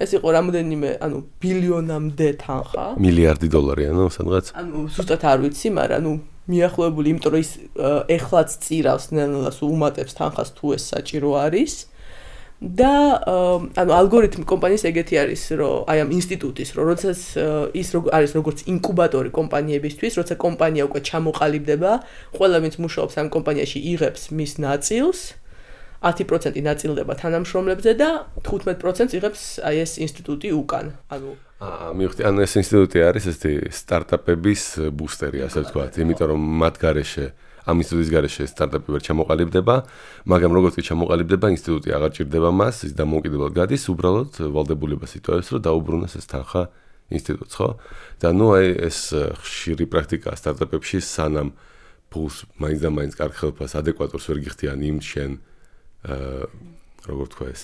ეს იყო რამოდენიმე, ანუ ბილიონამდე თანხა. მილიარდი დოლარი, ანუ სადღაც? ანუ ზუსტად არ ვიცი, მაგრამ ნუ მიახლოებული, იმიტომ რომ ის ეხლაც წირავს ნელ-ნელა უმატებს თანხას თუ ეს საჭირო არის. და ანუ ალგორითმი კომპანიის ეგეთი არის, რომ აი ამ ინსტიტუტის, რომ როდესაც ის არის როგორც ინკუბატორი კომპანიებისთვის, როცა კომპანია უკვე ჩამოყალიბდება, ყველა ვინც მუშაობს ამ კომპანიაში იღებს მის ნაწილს, 10% ნაწილდება თანამშრომლებზე და 15% იღებს აი ეს ინსტიტუტი უკან. ანუ მივხვდი, ანუ ეს ინსტიტუტი არის ესეთი სტარტაპების ბუსტერი, ასე ვთქვათ, იმიტომ რომ მათ გარეშე ამ ინსტიტუტის გარეშე სტარტაპი ვერ ჩამოყალიბდება, მაგრამ როგორც კი ჩამოყალიბდება, ინსტიტუტი აღარ ჭირდება მას, ის დამოუკიდებლად გადის, უბრალოდ ვალდებულებას იტოვებს, რომ დაუბრუნოს ეს თანხა ინსტიტუტს, ხო? და ნუ აი ეს ხშირი პრაქტიკაა სტარტაპებში, სანამ ფულს მაინც და მაინც კარგ ხელფას ადეკვატურს ვერ გიხდიან იმ შენ როგორ თქვა ეს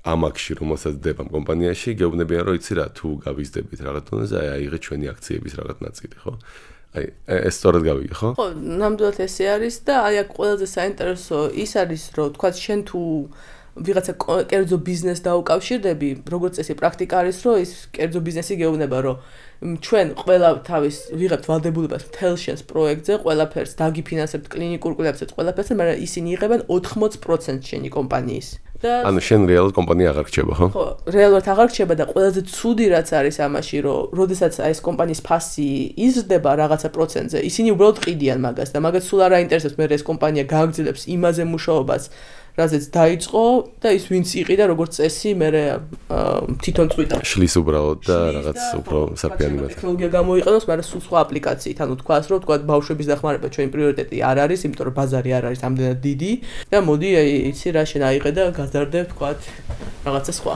ამაკში, რომელსაც დებთ ამ კომპანიაში, გეუბნებიან, რომ იცი რა, თუ გავიზდებით რაღაც დონეზე, აი აიღეთ ჩვენი აქციების რაღაც ნაწილი, ხო? აი ეს სწორად გავიგე, ხო? ხო, ნამდვილად ესე არის და აი აქ ყველაზე საინტერესო ის არის, რომ თქვა შენ თუ ვიღაცა კერძო ბიზნესს დაუკავშირდები, როგორც წესი პრაქტიკა არის, რომ ის კერძო ბიზნესი გეუბნება, რომ ჩვენ ყველა თავის ვიღებთ ვალდებულებას მთელ შენს პროექტზე, ყველაფერს დაგიფინანსებთ კლინიკურ კვლევებსაც, ყველაფერს, მაგრამ ისინი იღებენ 80% შენი კომპანიის. ანუ შენ რეალურად კომპანია აღარ რჩება, ხო? ხო, რეალურად აღარ რჩება და ყველაზე ცუდი რაც არის ამაში, რომ როდესაც აი ეს კომპანიის ფასი იზრდება რაღაცა პროცენტზე, ისინი უბრალოდ ყიდიან მაგას და მაგას სულ არ აინტერესებს მე ეს კომპანია გააგრძელებს იმაზე მუშაობას, რაზეც დაიწყო და ის ვინც იყი და როგორც წესი მე თვითონ წვიდა შლის უბრალოდ და რაღაც უფრო საფიანი მათ ტექნოლოგია გამოიყენოს, მაგრამ სულ სხვა აპლიკაციით, ანუ თქვას რომ თქვა ბავშვების დახმარება ჩვენი პრიორიტეტი არ არის, იმიტომ რომ ბაზარი არ არის ამდენად დიდი და მოდი იცი რა შენ აიღე და გაზარდებ თქვა რაღაცა სხვა.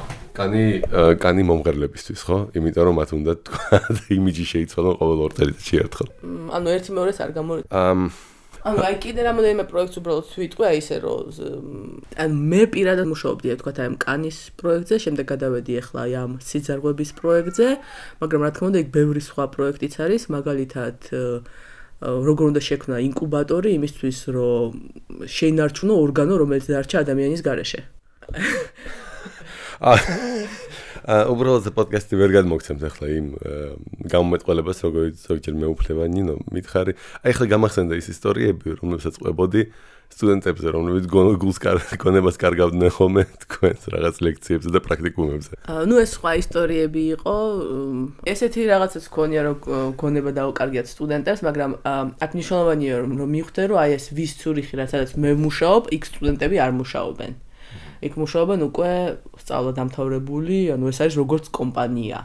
კანი მომღერლებისთვის ხო? იმიტომ რომ მათ უნდა თქვა იმიჯი შეიცვალონ ყოველ 2 წელიწადში ერთხელ. ანუ ერთი მეორეს არ გამორიცხავ. ანუ აი კიდე რამოდენიმე პროექტს უბრალოდ ვიტყვი აი ისე რომ ანუ მე პირადად მუშაობდი თქვა აი ამ კანის პროექტზე, შემდეგ გადავედი ახლა აი ამ სიძარღვების პროექტზე, მაგრამ რა თქმა უნდა იქ ბევრი სხვა პროექტიც არის, მაგალითად როგორ უნდა შექმნა ინკუბატორი იმისთვის რომ შეინარჩუნო ორგანო რომელიც დარჩა ადამიანის გარეშე. უბრალოდ პოდკასტი ვერ გადმოგცემთ ახლა იმ გამომეტყველებას როგორც ზოგჯერ მეუფლება ნინო მითხარი აი ახლა გამახსენდა ის ისტორიები რომლებსაც ყვებოდი სტუდენტებზე რომლებიც გონებას კარგავდნენ ხოლმე თქვენს რაღაც ლექციებზე და პრაქტიკუმებზე ნუ ეს სხვა ისტორიები იყო ესეთი რაღაცაც ქონია რომ გონება დაუკარგიათ სტუდენტებს მაგრამ აქ მნიშვნელოვანია რომ მივხვდე რომ აი ეს ვის ცურიხი რაცაც მე ვმუშაობ იქ სტუდენტები არ მუშაობენ იქ მუშაობენ უკვე სწავლა დამთავრებული, ანუ ეს არის როგორც კომპანია.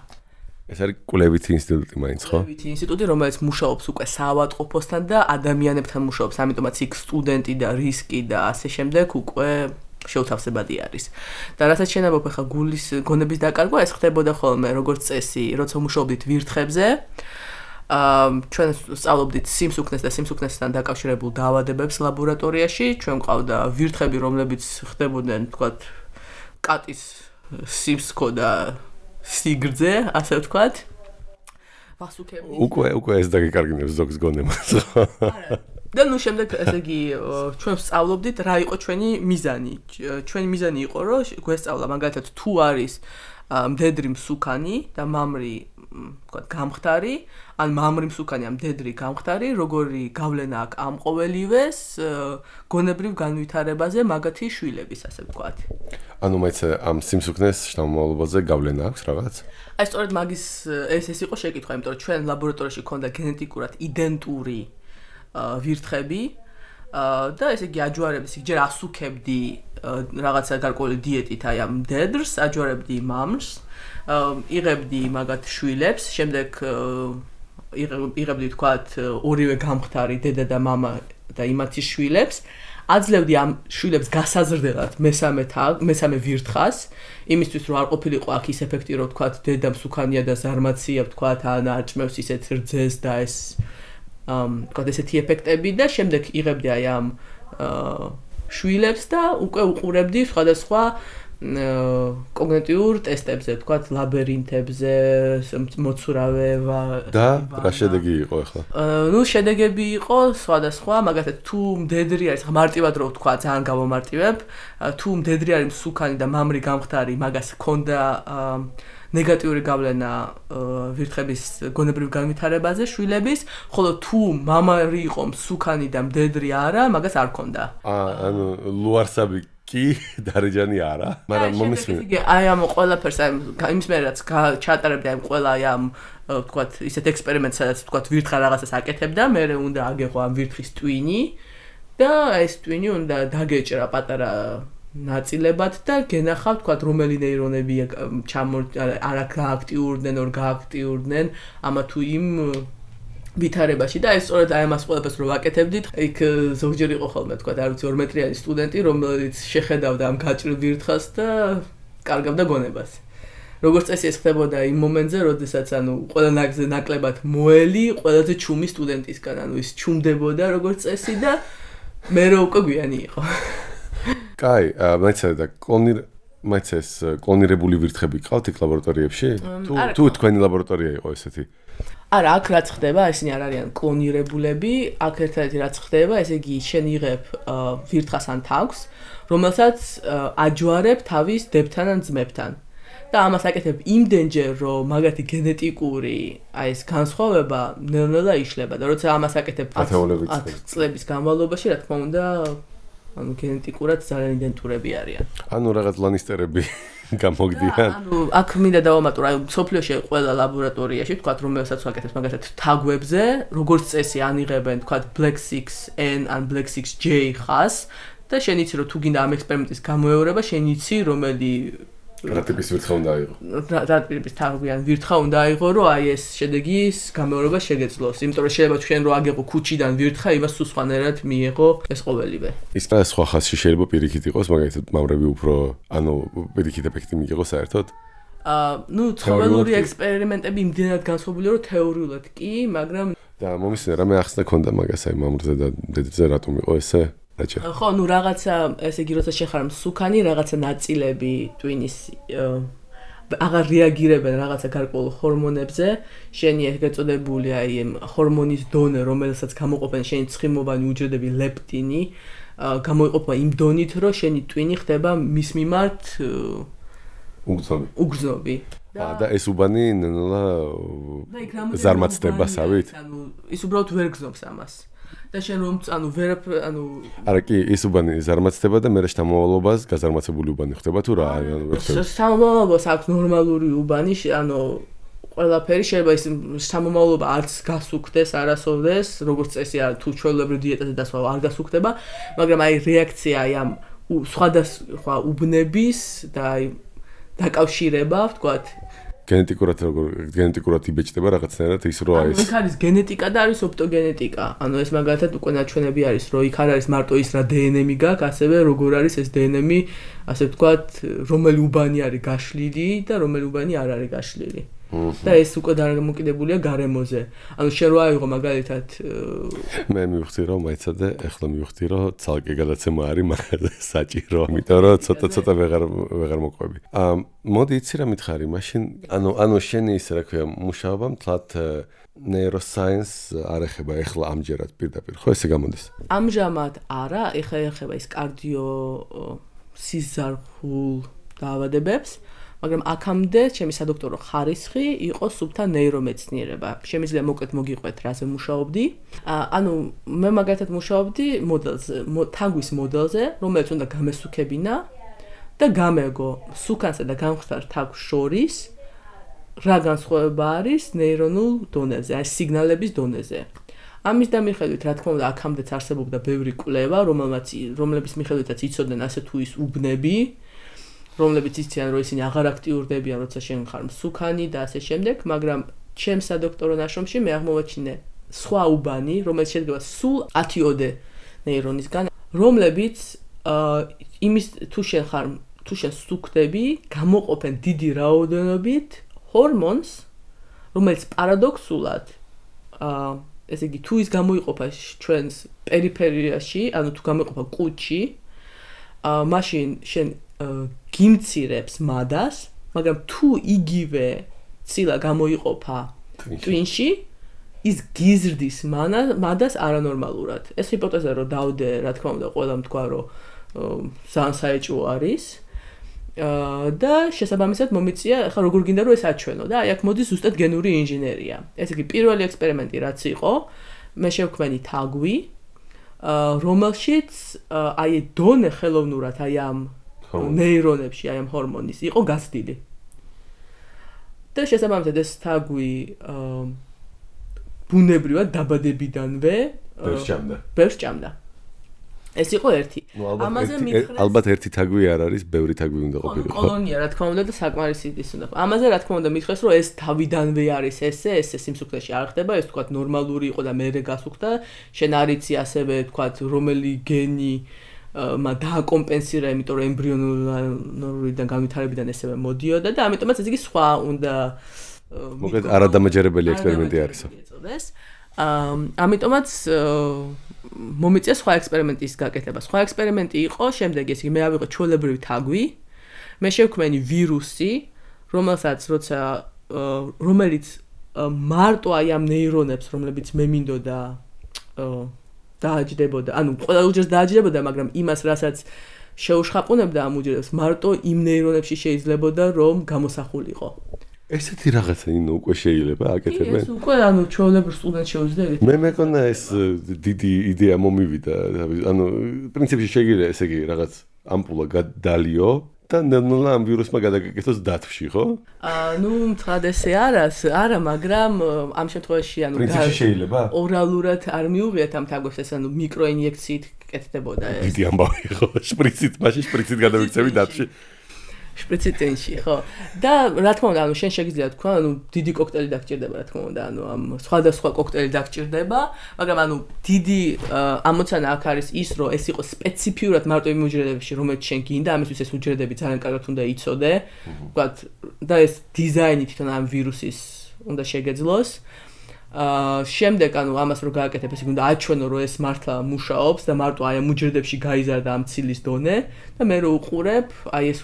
ეს არის კვლევითი ინსტიტუტი მაინც, ხო? კვლევითი ინსტიტუტი, რომელიც მუშაობს უკვე საავადმყოფოსთან და ადამიანებთან მუშაობს, ამიტომაც იქ სტუდენტი და რისკი და ასე შემდეგ უკვე შეუთავსებადი არის. და რასაც შენებობ ახლა გულის გონების დაკარგვა, ეს ხდებოდა ხოლმე როგორც წესი, როცა მუშაობდით ვირთხებზე. ჩვენ სწავლობდით სიმსუქნეს და სიმსუქნესთან დაკავშირებულ დაავადებებს ლაბორატორიაში. ჩვენ ყავდა ვირთხები, რომლებიც ხდებოდნენ, თქვათ, კატის სიმსქო და სიგრძე, ასე ვთქვათ. ვასუქები. უკვე ეს დაგეკარგინებს ზოგს გონებას. და ნუ შემდეგ ესე იგი ჩვენ სწავლობდით რა იყო ჩვენი მიზანი. ჩვენი მიზანი იყო რომ გვესწავლა მაგალითად თუ არის მდედრი მსუქანი და მამრი თქვა გამხდარი ან მამრი მსუქანი ამ მდედრი გამხდარი როგორი გავლენა აქვს ამ ყოველივეს გონებრივ განვითარებაზე მაგათი შვილების ასე ვთქვათ. ანუ მეც ამ სიმსუქნეს შთამომავლობაზე გავლენა აქვს რაღაც? აი სწორედ მაგის ეს იყო შეკითხვა, იმიტომ რომ ჩვენ ლაბორატორიაში ქონდა გენეტიკურად იდენტური ვირთხები და ესე იგი აჯვარებდი, ჯერ ასუქებდი რაღაცა გარკვეული დიეტით აი ამ მდედრს, აჯვარებდი მამრს, იღებდი მაგათ შვილებს, შემდეგ იღებდი თქვათ ორივე გამხდარი დედა და მამა და იმათი შვილებს, აძლევდი ამ შვილებს გასაზრდელად მესამე ვირთხას, იმისთვის რომ არ ყოფილიყო აქ ის ეფექტი რომ თქვათ დედა მსუქანია და ზარმაცია ვთქვათ ან არჭმევს ისეთ რძეს და ეს თქვათ ესეთი ეფექტები და შემდეგ იღებდი აი ამ შვილებს და უკვე უყურებდი სხვადასხვა კოგნიტიურ ტესტებზე, თქვათ ლაბირინთებზე, მოცურავე და რა შედეგი იყო ახლა? ნუ შედეგები იყო სხვადასხვა, მაგალითად თუ მდედრი არის, ხა მარტივად რო ვთქვა, ძალიან გავომარტივებ, თუ მდედრი არის მსუქანი და მამრი გამხდარი, მაგას ჰქონდა ნეგატიური გავლენა ვირთხების გონებრივ განვითარებაზე შვილების, ხოლო თუ მამარი იყო მსუქანი და მდედრი არა, მაგას არ ჰქონდა. ანუ ლუარსაბი კი დარეჯანი არა, მაგრამ მომისმინე. აი ამ ყველაფერს აი იმის მე რაც ჩატარებდი აი ყველა აი ამ ვთქვათ ისეთ ექსპერიმენტს სადაც ვთქვათ ვირთხა რაღაცას აკეთებდა, მე უნდა აგეღო ამ ვირთხის ტვინი და ეს ტვინი უნდა დაგეჭრა პატარა ნაწილებად და გენახავ თქვათ რომელი ნეირონები არ გააქტიურდნენ, ორ გააქტიურდნენ ამა თუ იმ ვითარებაში და ეს სწორედ აი ამას ყველაფერს რო ვაკეთებდით, იქ ზოგჯერ იყო ხოლმე თქვათ არ ვიცი 2 მეტრიანი სტუდენტი, რომელიც შეხედავდა ამ გაჭრილ ვირთხას და კარგავდა გონებას. როგორც წესი ეს ხდებოდა იმ მომენტზე, როდესაც ანუ ყველა ნაკლებად მოელი, ყველაზე ჩუმი სტუდენტისგან, ანუ ის ჩუმდებოდა როგორც წესი და მე რო უკვე გვიანი იყო. კაი, მეცადა მეც ეს კლონირებული ვირთხები ყავთ იქ ლაბორატორიებში? თუ თქვენი ლაბორატორია იყო ესეთი? არა, აქ რაც ხდება, ესენი არ არიან კლონირებულები, აქ ერთადერთი რაც ხდება, ესე იგი შენ იღებ ვირთხას ან თავს, რომელსაც აჯვარებ თავის დებთან ან ძმებთან. და ამას აკეთებ იმდენჯერ, რომ მაგათი გენეტიკური აი ეს განსხვავება ნელ-ნელა იშლება და როცა ამას აკეთებ 10 წლების განმავლობაში, რა თქმა უნდა, ანუ გენეტიკურად ძალიან იდენტურები არიან. ანუ რაღაც ლანისტერები გამოგდიან. ანუ აქ მინდა დავამატო, აი სოფლიოში ყველა ლაბორატორიაში, თქვათ, რომელსაც ვაკეთებ მაგათად თაგვებზე, როგორც წესი ანიღებენ, თქვათ, Black 6N ან Black 6J ხას და შენ იცი რომ თუ გინდა ამ ექსპერიმენტის გამოეორება, შენ იცი რომელი რა ტიპის ვირთხა უნდა აიღო. რა ტიპის თავიდან ვირთხა უნდა აიღო, რომ აი ეს შედეგის გამეორება შეგეძლოს. იმიტომ რომ შეიძლება თქვენ რომ აგეყო ქუჩიდან ვირთხა, იმას სულ სხვანაირად მიიღო ეს ყოველივე. ის და სხვა ხასში შეიძლება პირიქით იყოს, მაგალითად მავრები უფრო პირიქით ეფექტი მიიღო საერთოდ. ცხოველური ექსპერიმენტები იმდენად განსხვავებულია, რომ თეორიულად კი, მაგრამ და მომისმენე რამე ახსნა ქონდა მაგას აი მამრზე და დედებზე რატომ იყო ესე? ხო, რაღაცა ესე იგი როცა შეხარ მსუქანი, რაღაცა ნაწილები ტვინის აღარ რეაგირებენ რაღაცა გარკვეულ ჰორმონებზე, შენი ეგ ეწოდებული აი ჰორმონის დონე, რომელსაც გამოყოფენ შენი ცხიმოვანი უჯრედები ლეპტინი, გამოიყოფა იმ დონით, რომ შენი ტვინი ხდება მის მიმართ უგრძნობი. და ეს უბანი ნელა ზარმაცდებასავით? ის უბრალოდ ვერ გზნობს ამას. და შენ რომ არა კი ის უბანი ზარმაცდება და მერე შთამომავლობას გაზარმაცებული უბანი ხდება თუ რა შთამომავლობას აქვს ნორმალური უბანი ყველაფერი შეიძლება ის შთამომავლობა არც გასუქდეს არასოდეს როგორც წესი თუ ჩვეულებრივ დიეტაზე დასვა არ გასუქდება მაგრამ აი რეაქცია აი ამ სხვადასხვა უბნების და აი დაკავშირება ვთქვათ გენეტიკურად იბეჭდება რაღაცნაირად ის რო არის. იქ არის გენეტიკა და არის ოპტოგენეტიკა. ანუ ეს მაგალითად უკვე ნაჩვენები არის, რომ იქ არ არის მარტო ის რა დნმ გაქვს, ასევე როგორ არის ეს დნმ, ასე ვთქვათ, რომელი უბანი არის გაშლილი და რომელი უბანი არ არის გაშლილი. და ეს უკვე დამოკიდებულია გარემოზე. ანუ შენ რო აიღო მაგალითად მე მივხვდი რომ მაიცადე, ეხლა მივხვდი რომ ცალკე გადაცემა არის მაგაზე საჭირო, იმიტომ რომ ცოტა ვეღარ მოყვები. მოდი იცი რა მითხარი, მაშინ ანუ შენი ისე რა ქვია, მუშაობა მთლად neuroscience არ ეხება ეხლა ამჯერად პირდაპირ, ხო ესე გამოდის? ამჟამად არა, ეხლა ეხება ის კარდიო სიზარხულ დაავადებებს. მაგრამ აქამდე ჩემი სადოქტორო ხარისხი იყო სუფთა ნეირომეცნიერება. შემიძლია მოკლედ მოგიყვეთ რაზე მუშაობდი. ანუ მე მაგალითად მუშაობდი მოდელზე, თაგვის მოდელზე, რომელიც უნდა გამესუქებინა და გამეგო სუქანსა და გამხდარ თაგვის შორის რა განსხვავება არის ნეირონულ დონეზე, აი სიგნალების დონეზე. ამის დამიხედვით, რა თქმა უნდა, აქამდეც არსებობდა ბევრი კვლევა, რომლებიც მიხედვითაც იცოდნენ ასე თუ ის უბნები რომლებიც იციან რომ ისინი აღარ აქტიურდებიან როცა შენ ხარ მსუქანი და ასე შემდეგ, მაგრამ ჩემს სადოქტორო ნაშრომში მე აღმოვაჩინე სხვა უბანი, რომელიც შედგება სულ 10-ოდე ნეირონისგან, რომლებიც იმის თუ შენ სუქდები, გამოყოფენ დიდი რაოდენობით ჰორმონს, რომელიც პარადოქსულად ესე იგი თუ ის გამოიყოფა ჩვენს პერიფერიაში, ანუ თუ გამოიყოფა კუჭში, მაშინ შენ გიმცირებს მადას, მაგრამ თუ იგივე ცილა გამოიყოფა ტვინში, ის გიზრდის მადას არანორმალურად. ეს ჰიპოთეზა რომ დავდე, რა თქმა უნდა, ყველამ თქვა, რომ ძალიან საეჭვო არის. და შესაბამისად მომიწია, ახლა როგორ გინდა რომ ეს აჩვენო და აი აქ მოდის ზუსტად გენური ინჟინერია. ესე იგი პირველი ექსპერიმენტი რაც იყო, მე შევქმენი თაგვი, რომელშიც აი დონე ხელოვნურად აი ამ ნეირონებში აი ამ ჰორმონის იყო გაცდილი. და შესაბამისად ეს თაგვი ბუნებრივად დაბადებიდანვე ბევრს ჭამდა. ეს იყო ერთი. ამაზე მითხრეს ალბათ ერთი თაგვი არ არის, ბევრი თაგვი უნდა ყოფილიყო. კოლონია რა თქმა უნდა და საკმარისი ის უნდა. ამაზე რა თქმა უნდა მითხრეს რომ ეს თავიდანვე არის ესე სიმსუქნეში არ ხდება, ეს თქვა ნორმალური იყო და მერე გასუქდა. შენ არ იცი ასევე თქვა რომელი გენი დააკომპენსირა, იმიტომ რომ ემბრიონულიდან განვითარებიდან ესევე მოდიოდა და ამიტომაც ეს იგი სხვა უნდა მოკლედ არადამაჯერებელი ექსპერიმენტი არის. ამიტომაც მომიწია სხვა ექსპერიმენტის გაკეთება. სხვა ექსპერიმენტი იყო შემდეგი, ესე იგი მე ავიღო ჩვეულებრივი თაგვი, მე შევქმენი ვირუსი, რომელიც მარტო აი ამ ნეირონებს, რომლებიც მე მინდოდა დააჯდებოდა, ანუ ყველა უჯრედს დააჯდებოდა, მაგრამ იმას, რასაც შეუშხაპუნებდა ამ უჯრედებს, მარტო იმ ნეირონებში შეიძლებოდა, რომ გამოსახულიყო. ესეთი რაღაცა უკვე შეიძლება აკეთებენ? ეს უკვე ანუ ჩვეულებრივ სტუდენტს შეუძლია. მე მეკონა ეს დიდი იდეა მომივიდა, ანუ პრინციპში შეიძლება ესე იგი რაღაც ამპულა გადალიო და ნელა ამ ვირუსმა გადაგაკეთოს დათვში, ხო? ნუ მთლად ესე არა, მაგრამ ამ შემთხვევაში ანუ პრინციპში შეიძლება? ორალურად არ მიუღიათ ამ თაგვებს, ეს ანუ მიკროინიექციით კეთდებოდა ეს. დიდი ამბავი ხო, შპრიცით გადავიქცევი დათში. შპრიციტენში, ხო. და რა თქმა უნდა, შენ შეგიძლია თქვა, დიდი კოქტეილი დაგჭირდება, რა თქმა უნდა, ამ სხვადასხვა კოქტეილი დაგჭირდება, მაგრამ დიდი ამოცანა აქ არის ის, რომ ეს იყოს სპეციფიურად მარტო იმ უჯრედებში, რომელიც შენ გინდა, ამისთვის ეს უჯრედები ძალიან კარგად უნდა იცოდე. ვთქვათ, და ეს დიზაინი თვითონ ამ ვირუსის უნდა შეგეძლოს. შემდეგ ამას რო გააკეთებ, ესე უნდა აჩვენო, რომ ეს მართლა მუშაობს და მარტო აი ამ უჯრედებში გაიზარდა ამ ცილის დონე და მე რო უყურებ, აი ეს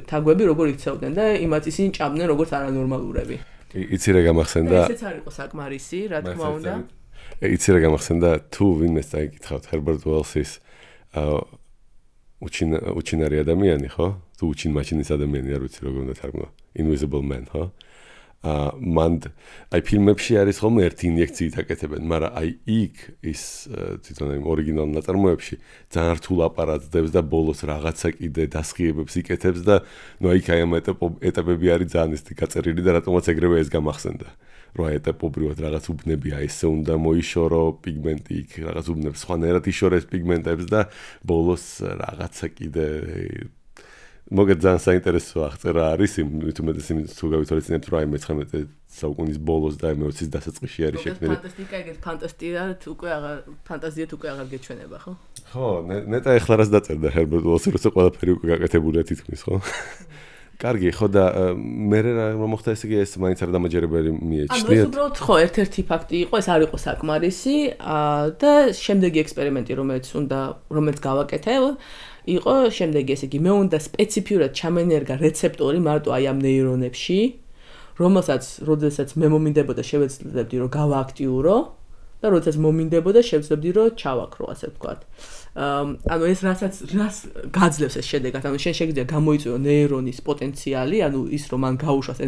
თაგვები როგორ იქცევდნენ და იმათ ისინი ჭამდნენ როგორც არანორმალურები. იცი რა გამახსენდა? ესეც არ იყო საკმარისი, რა თქმა უნდა. იცი რა გამახსენდა, თუ ვინმეს დაიკითხავთ Herbert Wells-ის უჩინარი ადამიანი, ხო? თუ უჩინმაჩინის ადამიანი, არ ვიცი როგორ უნდა თარგმნო. Invisible Man, ხო? მან აი ფილმებში არის ხოლმე ერთი ინიექციით აკეთებენ, მაგრამ აი იქ ის თვითონ იმ ორიგინალ ნაწარმოებში ძალიან რთულ აპარატს და ბოლოს რაღაცა კიდე დასხიებებს იკეთებს და ნუ აი ამ ეტაპები არის ძალიან ისეთი გაწერილი და რატომაც ეგრევე ეს გამახსენდა. რომ აი ეტაპობრივად რაღაც უბნებია, ესე უნდა მოიშორო პიგმენტი იქ, რაღაც უბნებს სხვანაირად იშორეს პიგმენტებს და ბოლოს რაღაცა კიდე მოგეთ ძალიან საინტერესო აღწერა არის იმ თუმეტეს იმ თუ გავითვალისწინებთ რომ აი მე-19 საუკუნის ბოლოს და მე-20-ის დასაწყისში არის შექმნილი. ფანტასტიკა ეგეთ ფანტაზიად უკვე აღარ გეჩვენება, ხო? ხო, ნეტა ეხლა რას დაწერდა Herbert Wells, როცა ყველაფერი უკვე გაკეთებულია თითქმის, ხო? კარგი, ხო და მე რა მოხდა ესე იგი ეს მაინც არ დამაჯერებელი მიეჩნიათ. ანუ ეს უბრალოდ ხო ერთ-ერთი ფაქტი იყო, ეს არ იყო საკმარისი და შემდეგი ექსპერიმენტი რომელიც გავაკეთე იყო შემდეგი, ესე იგი მე უნდა სპეციფიურად ჩამენერგა რეცეპტორი მარტო აი ამ ნეირონებში, როდესაც მე მომინდებოდა შევეცდები რომ გავააქტიურო და როდესაც მომინდებოდა შევეცდები რომ ჩავაქრო, ასე ვთქვათ. ანუ ეს რას გაძლევს ეს შედეგად, ანუ შენ შეგიძლია გამოიწვიო ნეირონის პოტენციალი, ანუ ის რომ მან გაუშვას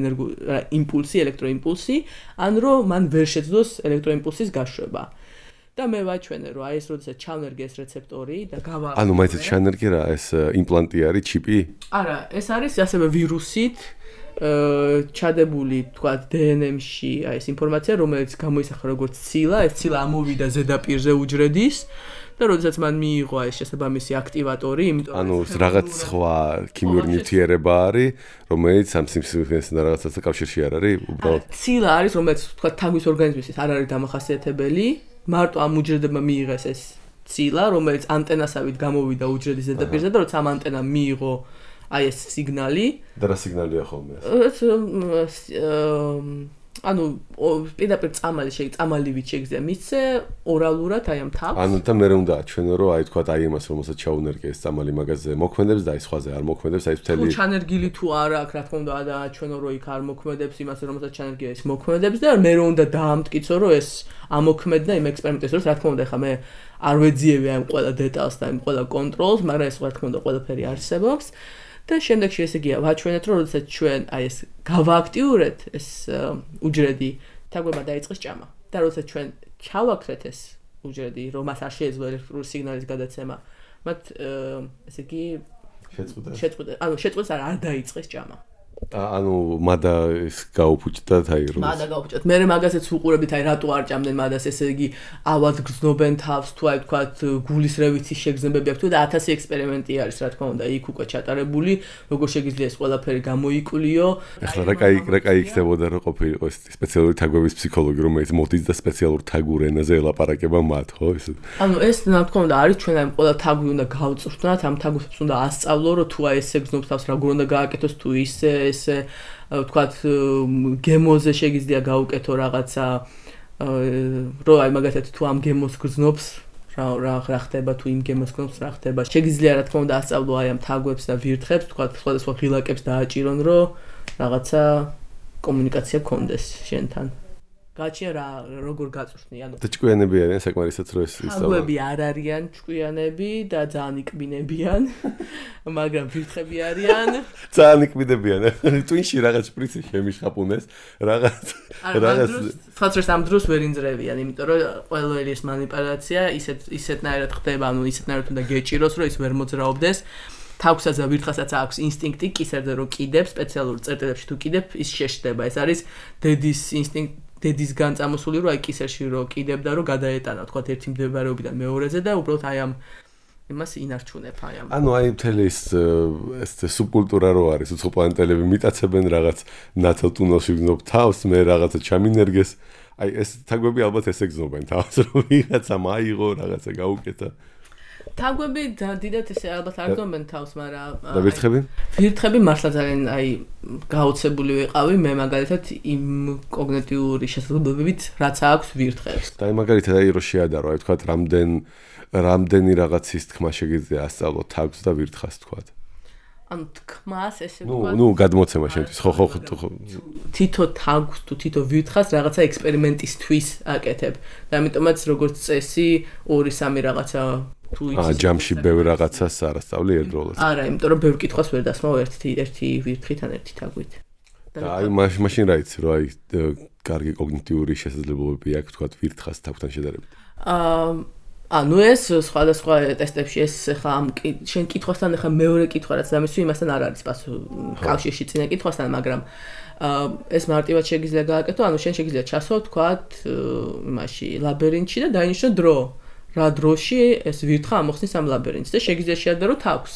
იმპულსი, ელექტროიმპულსი, ან რომ მან ვერ შეძლოს ელექტროიმპულსის გაშვება. და მე ვაჩვენე რომ აი ეს როდესაც ჩავნერგე ეს რეცეპტორი და გავაახლო. ანუ მაინც ჩავნერგე რა, ეს იმპლანტი არის, ჩიპი? არა, ეს არის ასევე ვირუსით ჩადებული, თქვათ, DNM-ში აი ეს ინფორმაცია, რომელიც გამოისახა როგორც ცილა, ეს ცილა ამოვიდა ზედაპირზე უჯრედის და როდესაც მან მიიღო ეს შესაბამისი აქტივატორი, იმიტომ ანუ რაღაც სხვა ქიმიური ნივთიერება არის, რომელიც ამ სიმსივნესთან რაღაცასთან კავშირში არ არის, უბრალოდ ცილა არის, რომელიც თქვათ თაგვის ორგანიზმისთვის არ არის დამახასიათებელი. მარტო ამ უჯრედებმა მიიღეს ეს ცილა, რომელიც ანტენასავით გამოვიდა უჯრედის ზედაპირზე და როცა ამ ანტენამ მიიღო აი ეს სიგნალი. და რა სიგნალია ხოლმე ეს? ანუ პირდაპირ წამალივით შეგიძლია მისცე ორალურად აი ამ თავს. ანუ და მე უნდა აჩვენო რომ აი თქვა აი იმას რომელსაც ჩაუნერგე ეს წამალი მაგაზე მოქმედებს და აი სხვაზე არ მოქმედებს, აი მთელი ჩანერგილი თუ არა აქვს, რა თქმა უნდა აჩვენო რომ იქ არ მოქმედებს იმას რომელსაც ჩანერგია ეს მოქმედებს და მე უნდა დაამტკიცო რომ ეს ამოქმედდა იმ ექსპერიმენტის დროს, რა თქმა უნდა ხა მე არ ვეძიები ამ ყველა დეტალს და იმ ყველა კონტროლს, მაგრამ ეს რა თქმა უნდა ყველაფერი არსებობს. და შემდეგში ესე იგი ვაჩვენეთ რომ როდესაც ჩვენ აი ეს გავააქტიურეთ ეს უჯრედი, თაგვებმა დაიწყეს ჭამა. და როდესაც ჩვენ ჩავაქრეთ ეს უჯრედი, რომ მას არ შეეძლო ელექტრული სიგნალის გადაცემა, მათ ესე იგი შეწყვეტა, არ დაიწყეს ჭამა. ანუ მადა ის გაუფუჭდა თაიროს. მადა გაუფუჭდა. მე მაგასაც უყურებით, აი რატო არ ჭამდნენ მადას, ესე იგი ავად გრძნობენ თავს, თუ აი თქვათ გულისრევითის შეგრძნებები აქვს და 1000 ექსპერიმენტი არის, რა თქმა უნდა, იქ უკვე ჩატარებული, როგორ შეგიძლია ეს ყველაფერი გამოიკვლიო. ახლა რა კაი იქნებოდა რომ ყოფილიყო ეს სპეციალური თაგვების ფსიქოლოგი, რომელიც მოდის და სპეციალურ თაგურ ენაზე ელაპარაკება მათ, ხო ეს? ანუ ეს რა თქმა უნდა არის ჩვენ აი ყველა თაგვი უნდა გავწვრთნათ, ამ თაგვებს უნდა ასწავლო, რომ თუ აი ესე გრძნობს თავს, როგორ უნდა გააკეთოს, თუ ისე ესე ვთქვათ გემოზე შეგიძლია გაუკეთო რაღაცა რომ აი მაგათაც თუ ამ გემოს გრძნობს რა ხდება თუ იმ გემოს გრძნობს რა ხდება შეგიძლია რა თქმა უნდა ასწავლო აი ამ თაგვებს და ვირთხებს ვთქვათ სხვადასხვა ღილაკებს დააჭირონ რომ რაღაცა კომუნიკაცია გქონდეს შენთან გაჩია რა როგორ გაწვრთნი ანუ და ჭკვიანები არიან საკმარისად რომ ეს ისწავლა თაგვები არ არიან ჭკვიანები და ძალიან ikbinebიან მაგრამ ვირთხები არიან ძალიან ikbinebიან ტვინში რაღაც შპრიცი შემიშხაპუნეს რაღაც ფათრეს ამ დროს ვერ ინძრევიან იმიტომ რომ ყველი ეს манипуляция ისეთნაირად ხდება ანუ ისეთნაირად უნდა გეჭიროს რომ ის ვერ მოძრაობდეს თავსაც და ვირთხასაც აქვს ინსტინქტი კისერზე რომ კიდებ სპეციალურ წერტილებში თუ კიდებ ის შეშდება ეს არის დედის ინსტინქტი დედისგან წამოსული რომ აი კისერში რომ კიდებდა რომ გადაეტანა თქვა ერთი მდებარეობიდან მეორეზე და უბრალოდ აი ამ იმას ინარჩუნებ აი ამ. ანუ აი მთელი ეს სუბკულტურა რო არის, უცხოპლანეტელები მიტაცებენ რაღაც ნათელ ტუნელში გზნობ თავს, მე რაღაცა ჩამინერგეს. აი ეს თაგვები ალბათ ესე გზნობენ თავს, რომ ვიღაცა მაიღო, რაღაცა გაუკეთა. თაგვები დიდად ესე ალბათ არ გზნობენ თავს, მაგრამ და ვირთხები? ვირთხები მართლა ძალიან აი გაოცებული ვიყავი მე მაგალითად იმ კოგნიტიური შესაძლებლობებით, რაც აქვს ვირთხებს. და აი მაგალითად აი რო შეადარო, აი თქვა რამდენი რაღაცის თქმა შეგიძლია ასწავლო თავს და ვირთხას თქვა. ანუ თქმას ესე ვთქვა. ნუ გადმოცემა შენთვის, ხო. თითო თავს თუ თითო ვირთხას რაღაცა ექსპერიმენტისთვის აკეთებ. და ამიტომაც როგორც წესი 2-3 რაღაცა თუ იცის. ჯამში ბევრ რაღაცას არასწავლი ერთდროულად. არა, იმიტომ რომ ბევრ კითხვას ვერ დასმევ ერთი ვირთხით ან ერთი თაგვით. და აი მაშინ რა იცი, რომ აი კარგი კოგნიტიური შესაძლებლობები აქვს თქვა ვირთხას თავთან შედარებით. ანუ ეს სხვადასხვა ტესტებში ეს ხა ამ შენ კითხვასთან ხა მეორე კითხვა რაც დამისვი იმასთან არ არის კავშირში წინა კითხვასთან, მაგრამ ეს მარტივად შეგიძლია გააკეთო, ანუ შენ შეგიძლია ჩასო თქვათ იმაში ლაბირინთში და დაინიშნო დრო. რა დროში ეს ვირთხა ამოხსნის ამ ლაბირინთს და შეგიძლია შეადარო თავს.